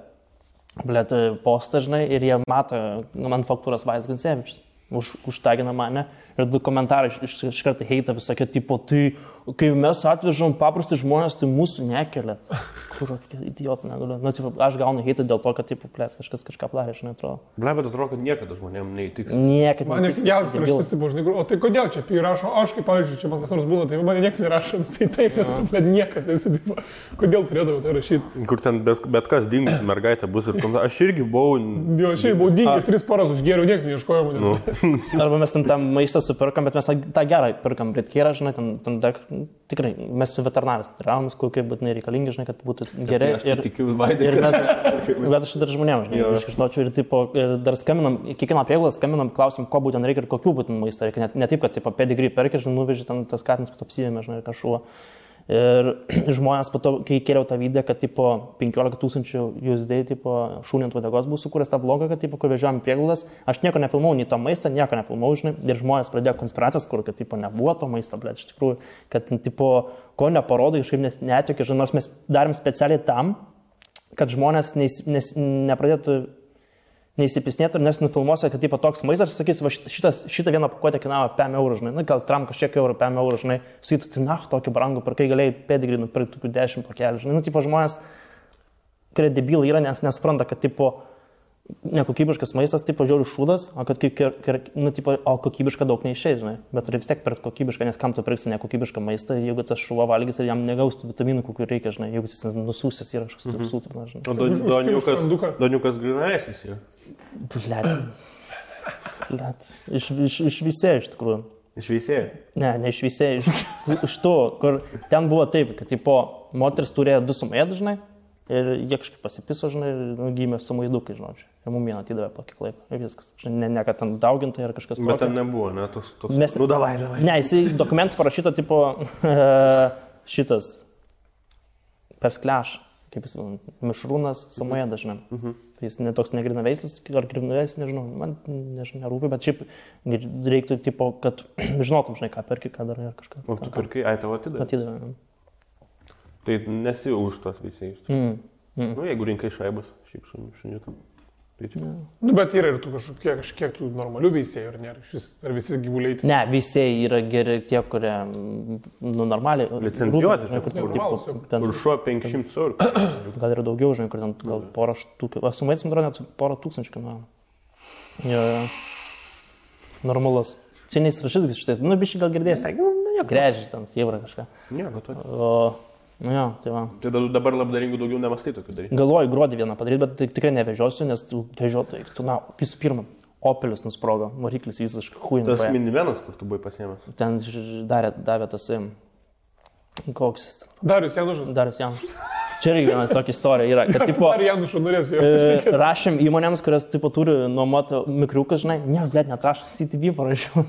[SPEAKER 1] Blet, postą, žinai, ir jie mato man faktūros Vaidas Gancevičius. Užtagina mane ir du komentarai iš karto heita visokie, tipo, tai kai mes atvežam paprasti žmonės, tai mūsų nekelėt. Kur, idiotų negaliu. Nu, tipo, aš gaunu heitą dėl to, kad, tipo, plėt, kažkas kažką plarė, žinai, atrodo.
[SPEAKER 2] Ble, bet atrodo, kad niekada žmonėm neįtiks.
[SPEAKER 1] Niekada.
[SPEAKER 3] Man nekiausias raštis, tipo, žinai, o tai kodėl čia rašo, aš kaip, pavyzdžiui, čia man kas nors būna, tai man niekas nerašo, tai taip, nes, bet niekas esi, tipo, kodėl turėdavau tai rašyti.
[SPEAKER 2] Kur ten bet kas dingus mergaitė bus ir komentarai. Aš irgi buvau...
[SPEAKER 3] Jo, aš irgi buvau dingęs 3 paras, užgėriau, niekas neieškojo manęs.
[SPEAKER 1] Arba mes ten maistą supirkam, bet mes tą gerą pirkam, britkyrą, žinai, tikrai, mes su veterinarais tiravimus, kokie būtinai reikalingi, žinai, kad būtų geri. Bet aš dar žmonėms, žinai, aš žinočiau ir, tipo, dar skambinam, kiekvieną prieglaudą skambinam, klausim, ko būtent reikia ir kokių būtent maistą reikia. Ne taip, kad, tipo, pedigree perki, žinai, nuveži ten tas katinas, pat apsivėmė, žinai, kažkuo. Ir žmonės po to, kai kėliau tą video, kad, tipo, 15 000 USD, tipo, šūnį ant vadegos buvo sukūręs tą vlogą, kad, tipo, kur vežiojom prieglaudas, aš nieko nefilmau, nei to maistą, nieko nefilmau, žinai, ir žmonės pradėjo konspiracijas, kur, kad, tipo, nebuvo to maisto, bet iš tikrųjų, kad, tipo, ko neparodai, kažkaip netiokė, žinai, nors mes darėm specialiai tam, kad žmonės nepradėtų neįsipisnėtų ir nesinufilmuosi, kad tipo toks maistas, sakysi, va šitą vieną pakuotę kainavo 5 eurų, žinai, nu, gal tram kažkiek eurų, 5 eurų, žinai, sakytų, tai tokį brangų, per kai galėjai pedigrį nupirkti 10 pakelį, žinai, nu, tipo žmonės, kurie debilai yra, nes nespranta, kad tipo nekokybiškas maistas, tipo žiaurių šūdas, o kad nu, tipo, o kokybiška daug neišėjai, žinai, bet turi vis tiek pirkti kokybišką, nes kam tu pirksi nekokybišką maistą, jeigu tas šuva valgys ir jam negaustų vitaminų, kokių reikia, žinai, jeigu jis nusūsęs yra kažkas sūtrinas, žinai.
[SPEAKER 2] O Doniukas grinaesis jau.
[SPEAKER 1] Blet, iš visėjo iš tikrųjų.
[SPEAKER 2] Iš visėjo?
[SPEAKER 1] Ne iš visėjo, iš to, kur ten buvo taip, kad, tipo, moteris turėjo 2 sumėdų, žinai, ir jie kažkaip pasipiso, žinai, ir gimė sumaidukai, žinau, ir mum vieną atidavė po kiek laiko, ir viskas. Ne, kad ten daugintai ar kažkas tokio.
[SPEAKER 2] Bet ten nebuvo, ne, toks...
[SPEAKER 1] Nu, davai. Ne, jisai dokumentas parašyta, tipo, šitas, perskleš, kaip jis, mišrūnas Samojedas, žinai. Tai jis netoks negrinaveislis, ar grinaveislis, nežinau, man nežinau, nerūpi, bet šiaip reiktų, tipo, kad žinotum, žinai, ką perki, ką darai ar kažką.
[SPEAKER 2] O tu perkai, tavo atidavė?
[SPEAKER 1] Atidavė.
[SPEAKER 2] Tai nesi už tos veisėjus. Nu, jeigu rinkai šaibas, šiaip šuniuką.
[SPEAKER 3] Nu, bet yra ir tu kažkiek tų normalių veisėjų, ar nėra? Ar visi gyvuliai?
[SPEAKER 1] Ne, veisėjai yra geri tie, kurie, nu, normaliai.
[SPEAKER 2] Licencijuoti, kur šuo 500 eurų.
[SPEAKER 1] Gal yra daugiau, žinai, kur ten gal porą štukų. Aš sumaitis, man atrodo, net porą tūkstančių kainuoja. Jo. Normalus. Cieniais rašys šitais, nu, biškai gal girdėsi. Grežiai ten, jėvra kažką.
[SPEAKER 2] Nieko tokio.
[SPEAKER 1] Nu jo, tai va.
[SPEAKER 2] Tai dabar labdaringų daugiau nemastai tokių daryti.
[SPEAKER 1] Galvoju gruodį vieną padaryti, bet tikrai nevežiosiu, nes vežiotojai, na, visų pirma, Opelis nusprogo, variklis visiškai huinai.
[SPEAKER 2] Tas minivenas, kur tu buvai pasiėmęs?
[SPEAKER 1] Ten davė tas, koks...
[SPEAKER 3] Darius Janušas.
[SPEAKER 1] Čia irgi viena tokia istorija yra, kad, tipo,
[SPEAKER 3] Janušų norės jo.
[SPEAKER 1] Rašėm įmonėms, kurios, tipo, turi nuomoti mikriukus, žinai, niekas, blėt, netrašo, CTV parašiau,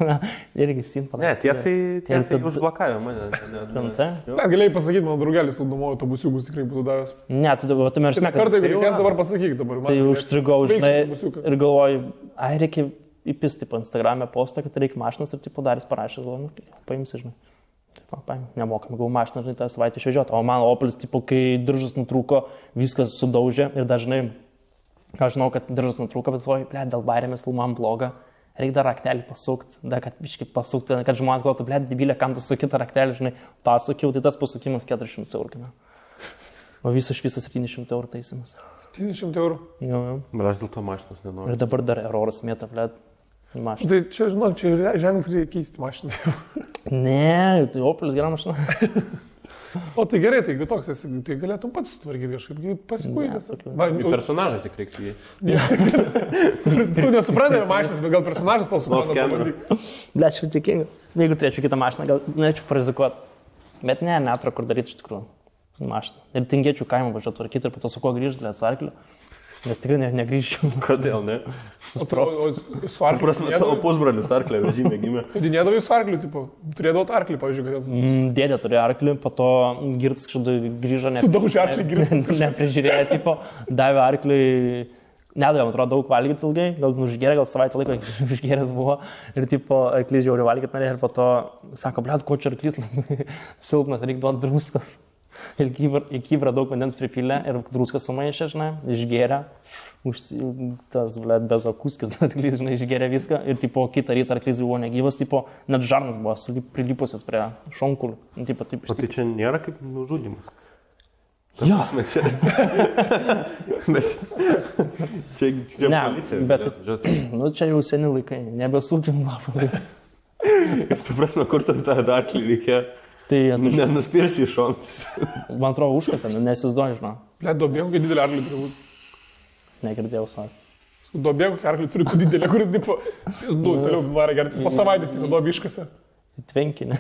[SPEAKER 1] irgi SIM parašiau.
[SPEAKER 2] Ne, tie užblokavę mane.
[SPEAKER 3] Galėjai pasakyti, mano draugelis nuomojo autobusiukus tikrai būtų davęs.
[SPEAKER 1] Ne, tu meršme, kad...
[SPEAKER 3] Kartą, jeigu reikės, dabar pasakyk dabar.
[SPEAKER 1] Tai užstrigau, žinai, ir galvoju, reikia įpisti, tipo, Instagram'e postą, kad reikia mašinas ir, tipo, Daris parašė, galvoju, nu, paimsi, žinai. Nemokam, gavau mašiną, žinai, tą savaitę išvežioti. O mano Opelis, tipo, kai diržas nutrūko, viskas sudaužė ir dažnai, aš žinau, kad diržas nutrūko, bet galvoju, ble, dėl bairėmės filmam blogą, reikia dar raktelį pasukti, dar kad biškai pasukti, kad žmonės galvotų, ble, debilė, kam tu suki tą raktelį, žinai, pasukiau, tai tas pasukimas 400 eurų. O visas 700 eurų taisimas.
[SPEAKER 3] 700 eurų?
[SPEAKER 1] Jo.
[SPEAKER 2] Bet aš dėl to mašinos nenoriu.
[SPEAKER 1] Ir dabar dar eroras mėta, ble. mašiną.
[SPEAKER 3] Tai čia, žinok, čia ženklis reikia keisti mašiną.
[SPEAKER 1] Ne, tai Opelis gera mašina.
[SPEAKER 3] O tai gerai, tai jeigu toks esi, tai galėtum pats sutvarkyti kažkaip, pasikuidęs.
[SPEAKER 2] Personažą tik reiks jį.
[SPEAKER 3] Tu nesuprantate mašinas, bet gal personažas tau supranta.
[SPEAKER 1] Ble, aš tikinga. Jeigu turėčiau kitą mašiną, gal norėčiau parizikuoti. Bet ne, netro kur daryti iš tikrųjų mašiną. Ir tingėčiau kaimą važiuoti tvarkyti ir po to su kuo grįžti, su arkliu. Nes tikrai negrįžčiau.
[SPEAKER 2] Kodėl, ne?
[SPEAKER 3] O su arkliu?
[SPEAKER 2] Prasme, tavo pusbrolis arklio vežime gimė.
[SPEAKER 3] Dėdavai su arkliu, tipo, turėdavau arklį, pavyzdžiui, kad...
[SPEAKER 1] Dėdė turėjo arklį, po to girtas kažkada grįžo,
[SPEAKER 3] sudaužė arklį girtas.
[SPEAKER 1] Neprižiūrėjo, tipo, davė arkliui, nedavė, man atrodo, daug valgyti ilgai, gal užgėrė, gal savaitę laiko užgėręs buvo ir, tipo, arklys žiauriai valgyti norėjo ir po to sako, blet, ko čia arklys silpnas, reikia duoti druskas. Ir į kybrą daug vandens pripylė ir druskas sumaišė, žinai, išgėrė, tas, blet, bezakuskis arklys, žinai, išgėrė viską ir, tipo, kitą rytą arklys buvo negyvas, tipo, net žarnas buvo prilipusias prie šonkulių. Tipo, taip,
[SPEAKER 2] o tai čia nėra kaip nužudymas?
[SPEAKER 1] Jo.
[SPEAKER 2] Bet čia
[SPEAKER 1] ne,
[SPEAKER 2] policija.
[SPEAKER 1] Bet, nu, čia jau seni laikai, nebesūkim lapą.
[SPEAKER 2] Ir tu prasme, kur tu tą arklį reikia?
[SPEAKER 1] Tai
[SPEAKER 2] nenuspirsi iš šonus.
[SPEAKER 1] Man atrodo, užkasė, nesizduoju, žinau.
[SPEAKER 3] Ble, duobėm, kai didelį arklį turi būti.
[SPEAKER 1] Negirdėjau, savo.
[SPEAKER 3] Duobėm, kai arklį turi būti didelį, kuris, tipo, toliau varą gerti, po savaitės tai duobė iškasė.
[SPEAKER 1] Tvenkinį.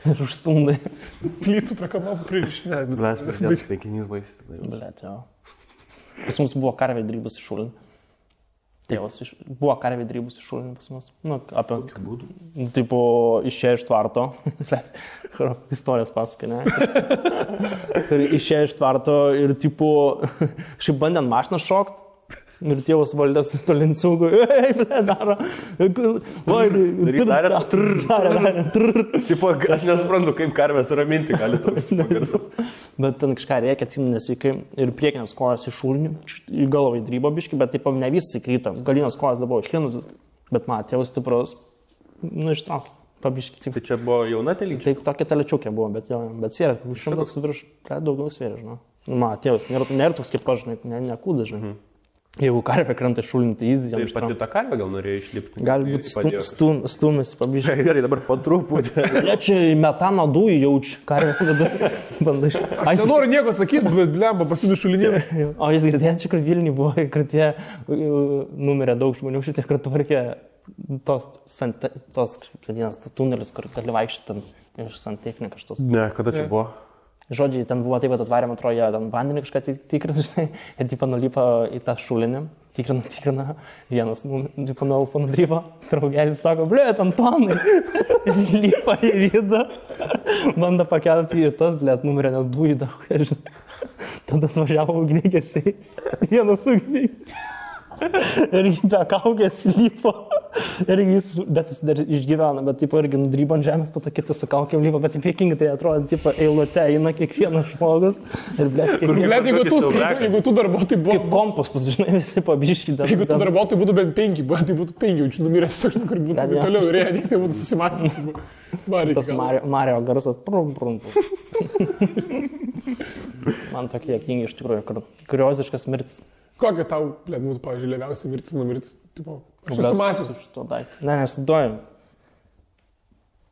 [SPEAKER 1] Ir užstundai.
[SPEAKER 3] Plytų prie kanopų pririšinė.
[SPEAKER 2] Zlas, pridėtas tvenkinys baisyti.
[SPEAKER 1] Blet, jo. Pas mus buvo karvė drybus iš šulinį. Tėvas buvo karvė drybus iš šulinį pas mus. Nu, apie...
[SPEAKER 2] Kokiu būdu?
[SPEAKER 1] Tipo, išėjo iš tvarto. Istorijas pasakai, ne? Ir išėjo iš tvarto ir, tipo, šiaip bandė ant mašiną šokt. Ir tėvas valdės tolincūgų. Ei, ble, daro.
[SPEAKER 2] Tipo, aš nesuprantu, kaip karvės raminti gali toks garsas.
[SPEAKER 1] Bet ten kažką reikia, atsimenu nesveikai. Ir priekinės kojos iš šulnių, į galvą įdrybo biškį, bet taip ne visi kryto. Galinės kojos dabar išlinusios. Bet man tėvas stiprus, nu, ištraukė. Pabiškį.
[SPEAKER 2] Tai čia buvo jauna telyčia?
[SPEAKER 1] Taip, tokia telečiukė buvo, bet svėrė, 100 virš, daugau svėrė, žinau. Man tėvas nėra toks kaip aš, nekūda, žinai. Jeigu karvė krenta šulinį, tai jis jam
[SPEAKER 2] ištraukė. Tai pati ta karvė gal norėjo išlipti?
[SPEAKER 1] Gali būti stumis, pabiškį.
[SPEAKER 2] Gerai, dabar po truputį.
[SPEAKER 1] Čia metano dujų jaučiu, karvė vidurį. Bandai.
[SPEAKER 3] Aš nenoriu nieko sakyti, bet blemba, pasidų šulinį.
[SPEAKER 1] O jis girdėjęs, čia kur Vilniui buvo, kur tie numirė daug žmonių, šitie, kur tvarkė tos vadinasi, tunelis, kur gali vaikščioti iš santechniką šitos.
[SPEAKER 2] Ne, kada čia buvo?
[SPEAKER 1] Žodžiai, ten buvo taip, kad atvarėm, atrodo, jie ten vandenį kažką tikrina, žinai, ir tipo nulipa į tą šulinį, tikrina, vienas tipo nuolpa nudrypo, draugelis sako, ble, Antonai, lipa į vidą, bando pakelti į tas, ble, numirė, nes dujų daug, žinai, tada atvažiavo ugniagesiai, vienas ugniagesiai. Ir be kaukės lypo. Ir bet jis dar išgyvena, bet taip irgi nudrybo ant žemės, po to kitas su kaukėm lypo, bet juokingai tai atrodo, tipo, eilute eina kiekvienas žmogus. Ir
[SPEAKER 3] jeigu tu darbuotojai buvo...
[SPEAKER 1] Kaip kompostus, žinai, visi pabiški.
[SPEAKER 3] Jeigu tu darbuotojai būtų bent 5, tai būtų 5, jaučiu numiręs tiesiog, kur būtų toliau ir jie nieks nebūtų susimąstyti.
[SPEAKER 1] Tas Mario garsas, man tokie juokingi iš tikrųjų, kurioziškas mirtis.
[SPEAKER 3] Kokia tau, būtų, pavyzdžiui, lėliausia mirtis numirti? Aš susimąsiu
[SPEAKER 1] už to daiktą. Ne, nesuduoju.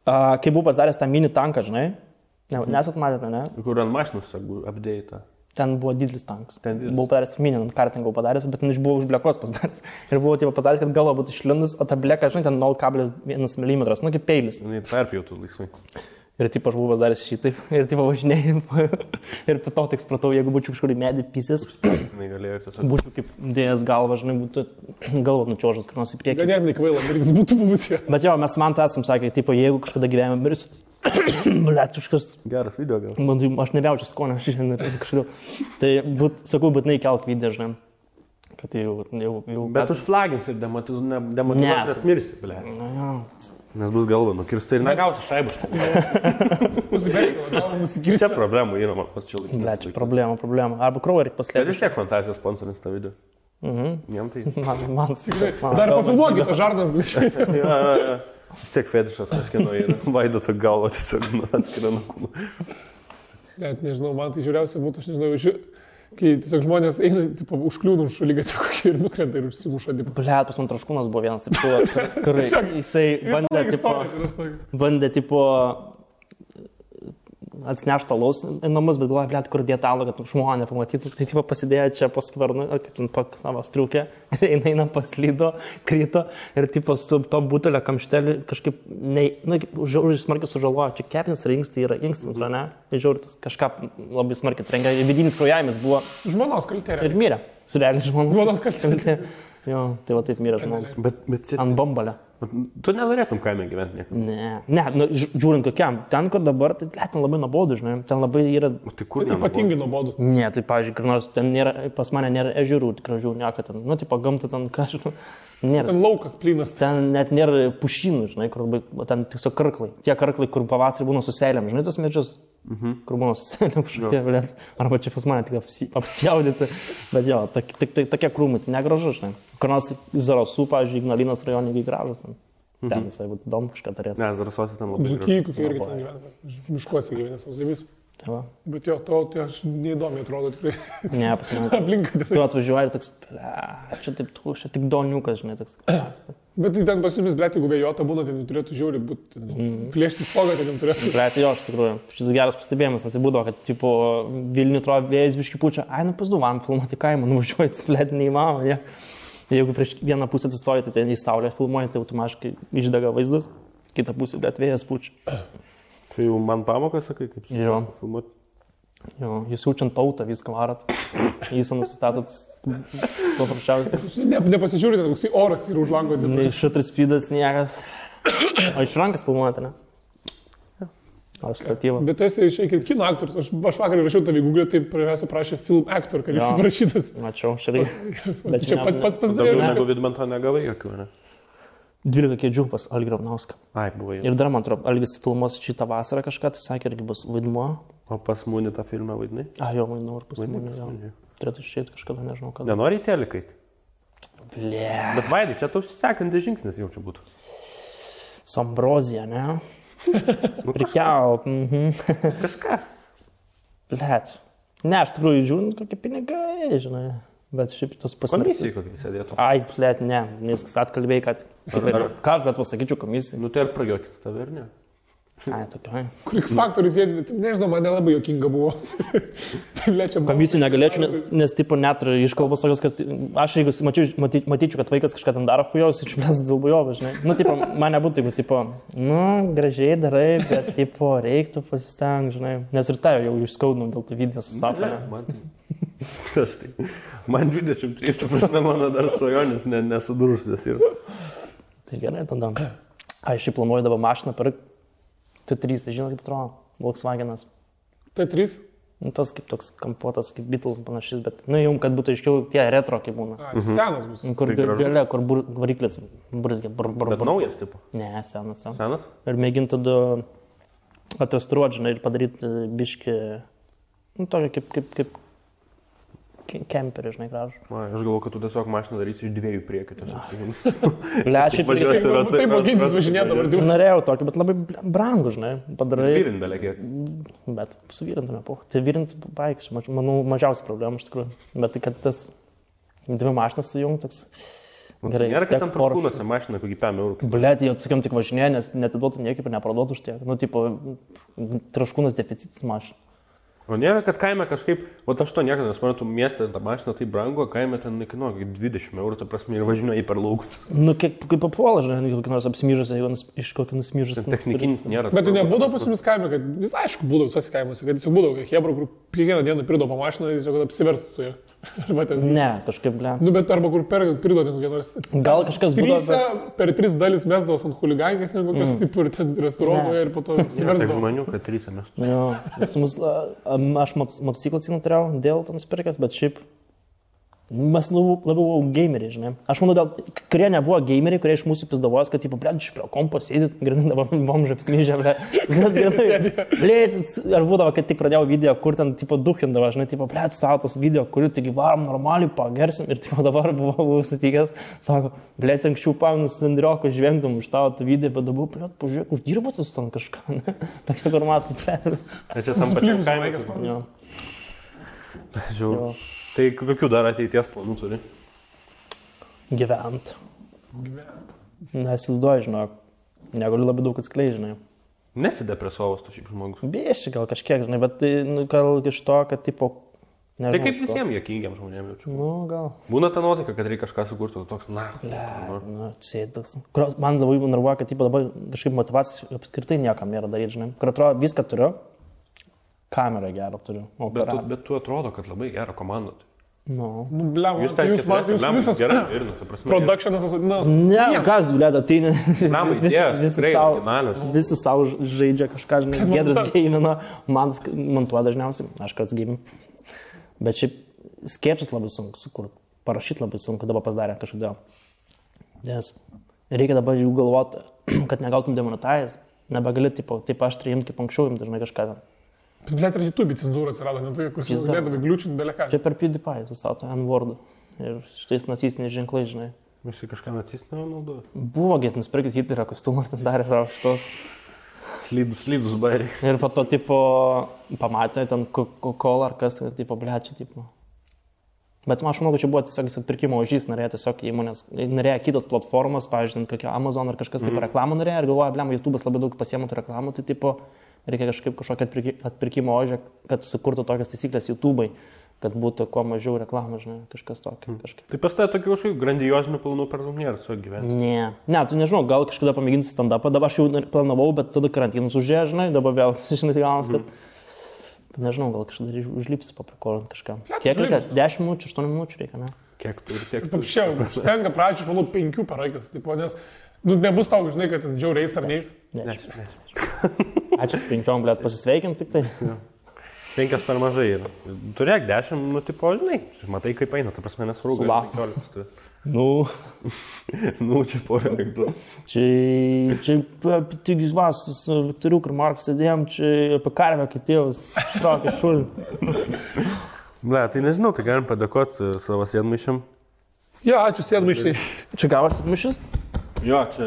[SPEAKER 1] Kai buvau pasidaręs tą mini tanką, žinai, nesat matėte, ne?
[SPEAKER 2] Kur ant mašinos apdėta.
[SPEAKER 1] Ten buvo didelis tankas. Buvau padaręs mini, kartingą padaręs, bet ten buvau už blekos pasidaręs. Ir buvau taip padaręs, kad galva būtų išlindus, o ta bleka, žinai, ten 0,1 mm, nu kaip peilis.
[SPEAKER 2] Jis perpjautų laisvai.
[SPEAKER 1] Ir taip aš buvau pasidaręs šitaip, ir taip važinėjau. Ir po to tik supratau, jeigu būčiau kažkur į medį pysės, būčiau kaip dėjęs galvą, žinai, būtų galva nučiožas, kur nors į priekį.
[SPEAKER 3] Ganėtinai kvaila, mirtis būtų buvusio.
[SPEAKER 1] Bet jo, mes man esam sakę, tipo, jeigu kažkada gyvenime mirsiu, blėtuškas.
[SPEAKER 2] Geras video gal.
[SPEAKER 1] Aš nebejaučiu skonio šiandien kažkodėl. Tai, sakau, būtinai kelk video, žinai. Kad jau...
[SPEAKER 2] Bet užflagins ir demotivuos, nes mirsi, blė. Nes bus galva nukirsta ir negausi šaibų štai. Čia problemų yra, man pats čia laikinis.
[SPEAKER 1] Ble, čia problema. Arba kraują reikia paslėpti.
[SPEAKER 2] Ir vis tiek fantazijos sponsorins tą video. Jam tai...
[SPEAKER 1] Man
[SPEAKER 3] dar pafilmuokit, tą žarnas, blė.
[SPEAKER 2] Vis tiek fetišas kažkieno yra. Vaidoto galva tiesiog atskiria nuo kūno.
[SPEAKER 3] Net nežinau, man tai žiūriausia būtų, aš nežinau, Kai tiesiog žmonės eina, tipo, užkliūna už šaligatį kokį ir nukrenta ir užsimuša.
[SPEAKER 1] Blet, pas man Traškūnas buvo vienas, kur jisai bandė, tipo, atsinešti alaus į namus, bet galvoja, blet, kur dėtalo, kad žmonė pamatytų. Tai, tipo, pasidėjo čia po skvarnu, kaip ten po savo striukę, ir eina paslydo, kryto ir, tipo, su to butelio kamštelį kažkaip, žiauriai smarkiai sužalojo. Čia kepinis ar inkstai yra inkstai, ne? Žiauriai kažką labai smarkiai trenkia. Vidinis kraujavimas buvo.
[SPEAKER 3] Žmonos kaltė.
[SPEAKER 1] Ir mirė. Surealiai
[SPEAKER 3] žmonos kaltė.
[SPEAKER 1] Jo, tai va taip mirė žmogus.
[SPEAKER 2] Bet
[SPEAKER 1] ant bombalio.
[SPEAKER 2] Tu nenorėtum kaime gyventi niekada?
[SPEAKER 1] Ne, žiūrint kokiam. Ten, kur dabar, tai blėt, ten labai nuobodu, žinai. Ten labai yra...
[SPEAKER 2] Tai kur
[SPEAKER 3] ypatingai nuobodu?
[SPEAKER 1] Ne, tai, pavyzdžiui, kur nors ten nėra, pas mane nėra ežerų, gražių, nieko ten. Nu, tipo, gamta ten kažkaip. Nėra.
[SPEAKER 3] Ten laukas plynas.
[SPEAKER 1] Ten net nėra pušynų, žinai, kur ten tiesiog karklai. Tie karklai, kur pavasarį būna su seilėm, žinai, tos medžius. Kur būna su seilėm kažkokie, blėt. Arba čia pas mane tik apspjaudyti. Bet jo, tokie krūmai, tai negražu, žinai. Kur nors Zarasų, pavyzdžiui, Ignalinos rajone gražus. Ten visai būtų įdomu kažką turėti.
[SPEAKER 2] Ne, Zarasuose ten labai
[SPEAKER 3] gražu. Dzūkijai, kokie irgi ten gyvena. Miškuose gyvena savo zėmis. Bet jo, tai aš neįdomiai atrodo tikrai.
[SPEAKER 1] Ne, pas mane.
[SPEAKER 3] Aplinka.
[SPEAKER 1] Tu atvažiuoji ir toks, čia tik doniukas, žinai, toks.
[SPEAKER 3] Bet tai ten pas jumis, blėt, jeigu vėjota būna, tai turėtų žiauriai būti, plėšti spogą, tai turėtų.
[SPEAKER 1] Blėt, jo, iš tikrųjų. Šis geras pastebėjimas atsibūdo, kad, tipo, Vilnių atrodo vėjas biški pučia, ai, nu pasduvam filmuoti kaimą, nuvažiuoji, blėt, neįmanoma, ja. Jeigu prieš vieną pusę atsistoji, tai ten į saulę filmuoji, tai automatiškai išdega vaizdas, kitą pusę, blėt, vėjas pučia.
[SPEAKER 2] Tai jau man pamokas, sakai, kaip filmuoti?
[SPEAKER 1] Jo, jūs jaučiant tautą, viską varat, jūs nusistatot paprasčiausiai.
[SPEAKER 3] Nepasižiūrite, koks oras yra už lango.
[SPEAKER 1] Nei šutris spydas, niekas. O iš rankas filmuojate, ne? Ar statyvą.
[SPEAKER 3] Bet tu esi šiek tiek kino aktorius. Aš vakar rašiau tavį Google, tai prašė film actor, kad jis parašytas.
[SPEAKER 1] Mačiau, šaliai.
[SPEAKER 3] Bet čia pats pasidarė.
[SPEAKER 2] Daugiau negu Vidmanto negavai jokių, ne?
[SPEAKER 1] 12 kėdžių pas Algį Ravnauską.
[SPEAKER 2] Ai, buvo jau.
[SPEAKER 1] Ir dar, man atrodo, Algis filmuos šitą vasarą kažką, tai sakė, irgi bus vaidmuo.
[SPEAKER 2] O pas Mūnį tą filmą vaidinai?
[SPEAKER 1] Jo, vaidinau ir pas Mūnį, jo. Turėtų išėti kažkada, nežinau kada.
[SPEAKER 2] Nenori į telikai?
[SPEAKER 1] Ble.
[SPEAKER 2] Bet Vaidai, čia tau sekantis žingsnis jau čia būtų.
[SPEAKER 1] Sombrozija, ne? Prikiau.
[SPEAKER 2] Kažką.
[SPEAKER 1] Blet. Ne, aš tikrųjų žiūrint, kokie pinigai, žinai. Bet šiaip tos pasirinkimas.
[SPEAKER 2] Komisijai kokį sėdėtų.
[SPEAKER 1] Ai, blet, ne. Nes atkalbėjai, kad... Ką aš bet pasakyčiau komisijai?
[SPEAKER 2] Nu tai ar prajuokit tave, ar ne?
[SPEAKER 1] Ai, tokia.
[SPEAKER 3] Kur X faktorius sėdė, nežinau, man nelabai juokinga buvo. Tai lečia.
[SPEAKER 1] Komisijai negalėčiau, nes tipo net iškalbos tokios, kad aš jeigu matyčiau, kad vaikas kažką ten daro hujaus, iš mes dalbujovą, žinai. Nu, tipo, man nebūtų, jeigu, tipo, nu, gražiai darai, bet, tipo, reiktų pasistengti, žinai. Nes ir tai jau išskaudinau dėl tų video su sapne.
[SPEAKER 2] Man 23, tu prasme, mano dar svajonės nesudužusios yra.
[SPEAKER 1] Tai gerai, tada. Ai, šiaip planuoju dabar mašiną pirkti. T3, žinot, kaip atrodo, Volkswagenas.
[SPEAKER 3] T3?
[SPEAKER 1] Nu, tas kaip toks kampuotas, kaip Beetle panašys, bet, nu, jums, kad būtų aiškiau, tie retro kaip būna.
[SPEAKER 3] Senas bus.
[SPEAKER 1] Kur gale, kur variklis burzgia.
[SPEAKER 2] Bet naujas, tipo?
[SPEAKER 1] Ne, senas.
[SPEAKER 2] Senas?
[SPEAKER 1] Ir mėginti tada atestuoti, žinai, ir padaryti biškį, nu, tokį kaip kemperį, žinai, gražų.
[SPEAKER 2] Aš galvoju, kad tu tiesiog mašiną darysi iš dviejų priekių.
[SPEAKER 1] Lečiai,
[SPEAKER 3] taip mokintis važinėdavo.
[SPEAKER 1] Norėjau tokį, bet labai brangų, žinai, padarai.
[SPEAKER 2] Vyrindalė kiek.
[SPEAKER 1] Bet su vyrindame, tai vyrint baigsiu, manau, mažiausia problema iš tikrųjų. Bet tai, kad tas dvi mašinas sujungt, toks gerai.
[SPEAKER 2] Nėra, kad tam Traškūnuose mašina kokį 5 eurų.
[SPEAKER 1] Blet, jie atsakiam tik važinėje, nes netiduotų niekaip ir neparduotų už tiek. Nu, tipo, Traškūnas deficitas mašina.
[SPEAKER 2] O nėra, kad kaime kažkaip, o aš to niekada nesuprantu, mieste tą mašiną tai brango, kaime ten nekainuoja 20 eurų, ta prasme, ir važinioja į per laukus.
[SPEAKER 1] Nu, kaip papuola, žinai, kokį nors apsimyžęs, jeigu iš kokį nusmyžęs.
[SPEAKER 2] Technikinis nėra.
[SPEAKER 3] Bet tai nebūdavo pas jumis kaime, kad vis aišku būdavo visose kaimuose, kad jis būdavo, kad Hebra, kur kiekvieną dieną pridavo mašiną, jis jau kad apsiverstų ją.
[SPEAKER 1] Ne, kažkaip, ble.
[SPEAKER 3] Nu, bet arba kur pridodė kokie nors.
[SPEAKER 1] Gal kažkas būdavo.
[SPEAKER 3] Per 3 dalis mesdavos ant huligankės, negu kokios tipo ir ten restauruotoje ir po to apsiversdavo.
[SPEAKER 2] Taip žmonių, kad 3 mes.
[SPEAKER 1] Jo, aš motociklą turėjau dėl to nusipirkęs, bet šiaip mes labiau gameriai, žinai. Aš manau, kurie nebuvo gameriai, kurie iš mūsų pizdavos, kad, tipo, blėt, iš prie kompo sėdit, grinai dabar bomžą apsmyžę, blėt. Ar būdavo, kad tik pradėjau video, kur ten, tipo, duhindavo, žinai, tipo, blėt, savo tos video, kurių taigi varom normaliai pagersim ir, tipo, dabar buvau sutikęs, sako, blėt, anksčiau paminus Andrioko žvengdom už tavo tą video, bet dabar, blėt, pažiūrėk, uždirbotus ten kažką, ne? Tokia formatas, blėt.
[SPEAKER 2] Čia tam pačiam kaime. Žiūrėjau. Tai kokių dar ateities planų turi?
[SPEAKER 1] Gyvent. Nesizduoju, žinok. Negaliu labai daug atskleidžiu, žinai.
[SPEAKER 2] Nesidepresuovas tu šiaip žmogus.
[SPEAKER 1] Bieščiai gal kažkiek, žinai, bet tai, gal iš to, kad, tipo, nežinau.
[SPEAKER 2] Tai kaip visiems juokingiam žmonėms jaučiu.
[SPEAKER 1] Nu, gal.
[SPEAKER 2] Būna ta nuotaika, kad reikia kažką sukurti, toks,
[SPEAKER 1] Sėdus. Man labai nervuoja, kad, tipo, dabar kažkaip motivacijos apskritai niekam nėra daryti, žinai. Kur atrodo, viską turiu, kamerą gerą turiu.
[SPEAKER 2] Bet tu atrodo, kad labai gerą komandą turi.
[SPEAKER 1] Nu,
[SPEAKER 3] blem, jūs visas
[SPEAKER 2] gerai ir, ta prasme.
[SPEAKER 3] Productionas,
[SPEAKER 1] ne, kas, blėda, tai
[SPEAKER 2] Blem,
[SPEAKER 1] visi savo žaidžia kažką, žinai, Giedrius gamino, man montuoja dažniausiai, aš karts gaminu. Bet šiaip skečus labai sunku sukurti, parašyti labai sunku, dabar pasidarė kažkodėl. Nes reikia dabar jau galvoti, kad negautum demonetize, nebegali, taip aš imti kaip anksčiau, imti, žinai, kažką.
[SPEAKER 3] Blet ir YouTube cenzūra atsirado, ne tokia, kur jūs galėdavai gliučinti beleką.
[SPEAKER 1] Čia per PewDiePie susato N-wordą ir šitais nacistiniais ženklai, žinai.
[SPEAKER 2] Visi kažką nacistinio naudoja.
[SPEAKER 1] Buvo, nusipirkit Hitlerio kostiumą ir ten darė šitos.
[SPEAKER 2] Slydus bairiai.
[SPEAKER 1] Ir po to, tipo, pamatė ten Coca-Cola ar kas, tipo, blečia, tipo. Bet aš manau, kad čia buvo tiesiog atpirkimo ožys, norėjo tiesiog įmonės, norėjo kitos platformos, pavyzdžiui, kokia Amazon ar kažkas, tipo, reklamų norėjo ir galvoja, blem, YouTube'as labai daug pasiėmė tų reklamų, tai, tipo, reikia kažkokį atpirkimo ožį, kad sukurtų tokias taisyklės YouTube'ai, kad būtų kuo mažiau reklamų, žinai, kažkas tokio.
[SPEAKER 2] Tai pas tai tokių kažkokių grandiozinių planų per daug nėra savo gyvenime.
[SPEAKER 1] Ne, tu nežinau, gal kažkada pamėginsi stand-upą, dabar aš jau planavau, bet tada karantinas užėjo, žinai, dabar vėl, žinai, tai gaunas, kad, nežinau, gal kažkada užlipsi paprikolint kažką. Kiek reikia? 10 minučių, 8 minučių reikia, ne?
[SPEAKER 2] Kiek tu ir tiek.
[SPEAKER 3] Paprasčiau, užtenka pradžiai, aš manau, 5 per akis, tipo, nes, nebus tau, žinai, kad ten žiauriais ar neis.
[SPEAKER 1] Ačiū 5, blėt, pasisveikinti tik tai.
[SPEAKER 2] 5 per mažai yra. Turėk 10, nu, tipo, žinai, matai kaip eina, ta prasme nesvarbu. Nu, čia porą reiktų.
[SPEAKER 1] Čia tik žvas, su Viktoriu ir Marku sėdėjom, čia apie karvę kitėjus, štraukė šulį.
[SPEAKER 2] Ble, tai nežinau, tai galim padėkoti savo sėdmaišiam.
[SPEAKER 3] Jo, ačiū sėdmaišiai.
[SPEAKER 1] Čia gavas sėdmaišis?
[SPEAKER 2] Jo, čia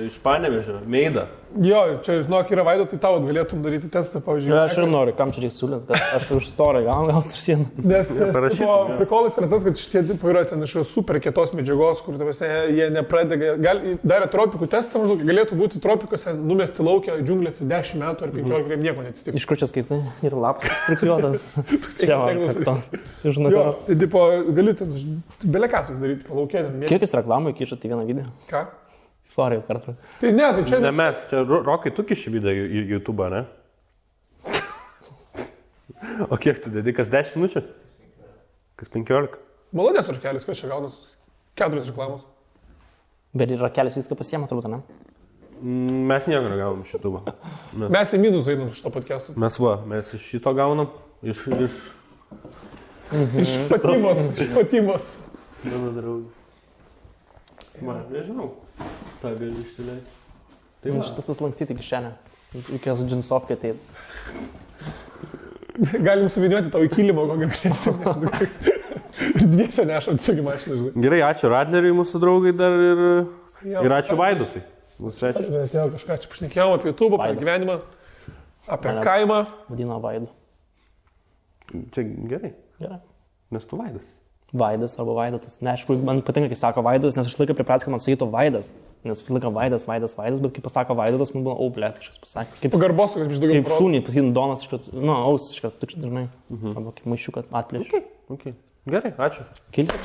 [SPEAKER 2] iš Panevėžio, Meida.
[SPEAKER 3] Jo, čia, žinok, yra Vaido, tai tau galėtum daryti testą, pavyzdžiui.
[SPEAKER 1] Aš ir noriu, kam čia reikia siūlyti, kad aš už storą gauti ir sieną.
[SPEAKER 3] Nes prikolas yra tas, kad šitie tipo yra ten iš super kietos medžiagos, kur jie nepradeda, darė tropikų testą, maždaug galėtų būti tropikuose, numesti laukia džiunglėse 10 metų ar 15, kaip nieko neatsitiko.
[SPEAKER 1] Iš kur čia skaitai? Ir lapas prikliuotas. Čia man,
[SPEAKER 3] jo, tai tipo, gali ten belekasus daryti, palaukėti.
[SPEAKER 1] Kiek jis reklamų įkišat į vieną video?
[SPEAKER 3] Ką?
[SPEAKER 1] Sorry, kartu.
[SPEAKER 3] Tai ne, tai čia...
[SPEAKER 2] Ne mes, čia Rokai, tu kiši video į YouTube, ne? O kiek tu dedi, kas 10 minučių? Kas 15?
[SPEAKER 3] Malonės Rakelis, kas čia gaunas? 4 reklamos.
[SPEAKER 1] Bet ir Rakelis viską pasiema, turbūt, ne?
[SPEAKER 2] Mes nieko negaunam iš YouTube.
[SPEAKER 3] Mes į minusą einam iš to podcast'o.
[SPEAKER 2] Mes iš šito gaunam, iš
[SPEAKER 3] Fatimos.
[SPEAKER 2] Mano draugų. Man, nežinau. Ta gali išsileisti.
[SPEAKER 1] Tai šitas lankstyti kišenę. Reikės džinsovkę ateit.
[SPEAKER 3] Galim suviniuoti tau į kilimą, ko galėsim. Ir dviese nešant sugi mašiną, žinai.
[SPEAKER 2] Gerai, ačiū Radleriui, mūsų draugai dar ir ačiū Vaidotui.
[SPEAKER 3] Atėjo kažką, čia pašnekėjom apie YouTube, apie gyvenimą, apie kaimą.
[SPEAKER 1] Vadino Vaidu.
[SPEAKER 2] Čia gerai.
[SPEAKER 1] Gerai.
[SPEAKER 2] Nes tu Vaidas.
[SPEAKER 1] Vaidas arba Vaidotas. Ne, aš man patinka, kai sako Vaidas, nes aš laiką pripratęs, kad man sakytų Vaidas. Nes vis laiką Vaidas, bet kai pasako Vaidotas, man buvo, blėt, kažkas pasakė. Kaip
[SPEAKER 3] pagarbos, kad iš daugiau.
[SPEAKER 1] Kaip šūnį, pasakytum Donas, ausiškas, tik žinai. Arba kaip maišiukas atplėš.
[SPEAKER 2] Okay. Gerai, ačiū.
[SPEAKER 1] Kilti.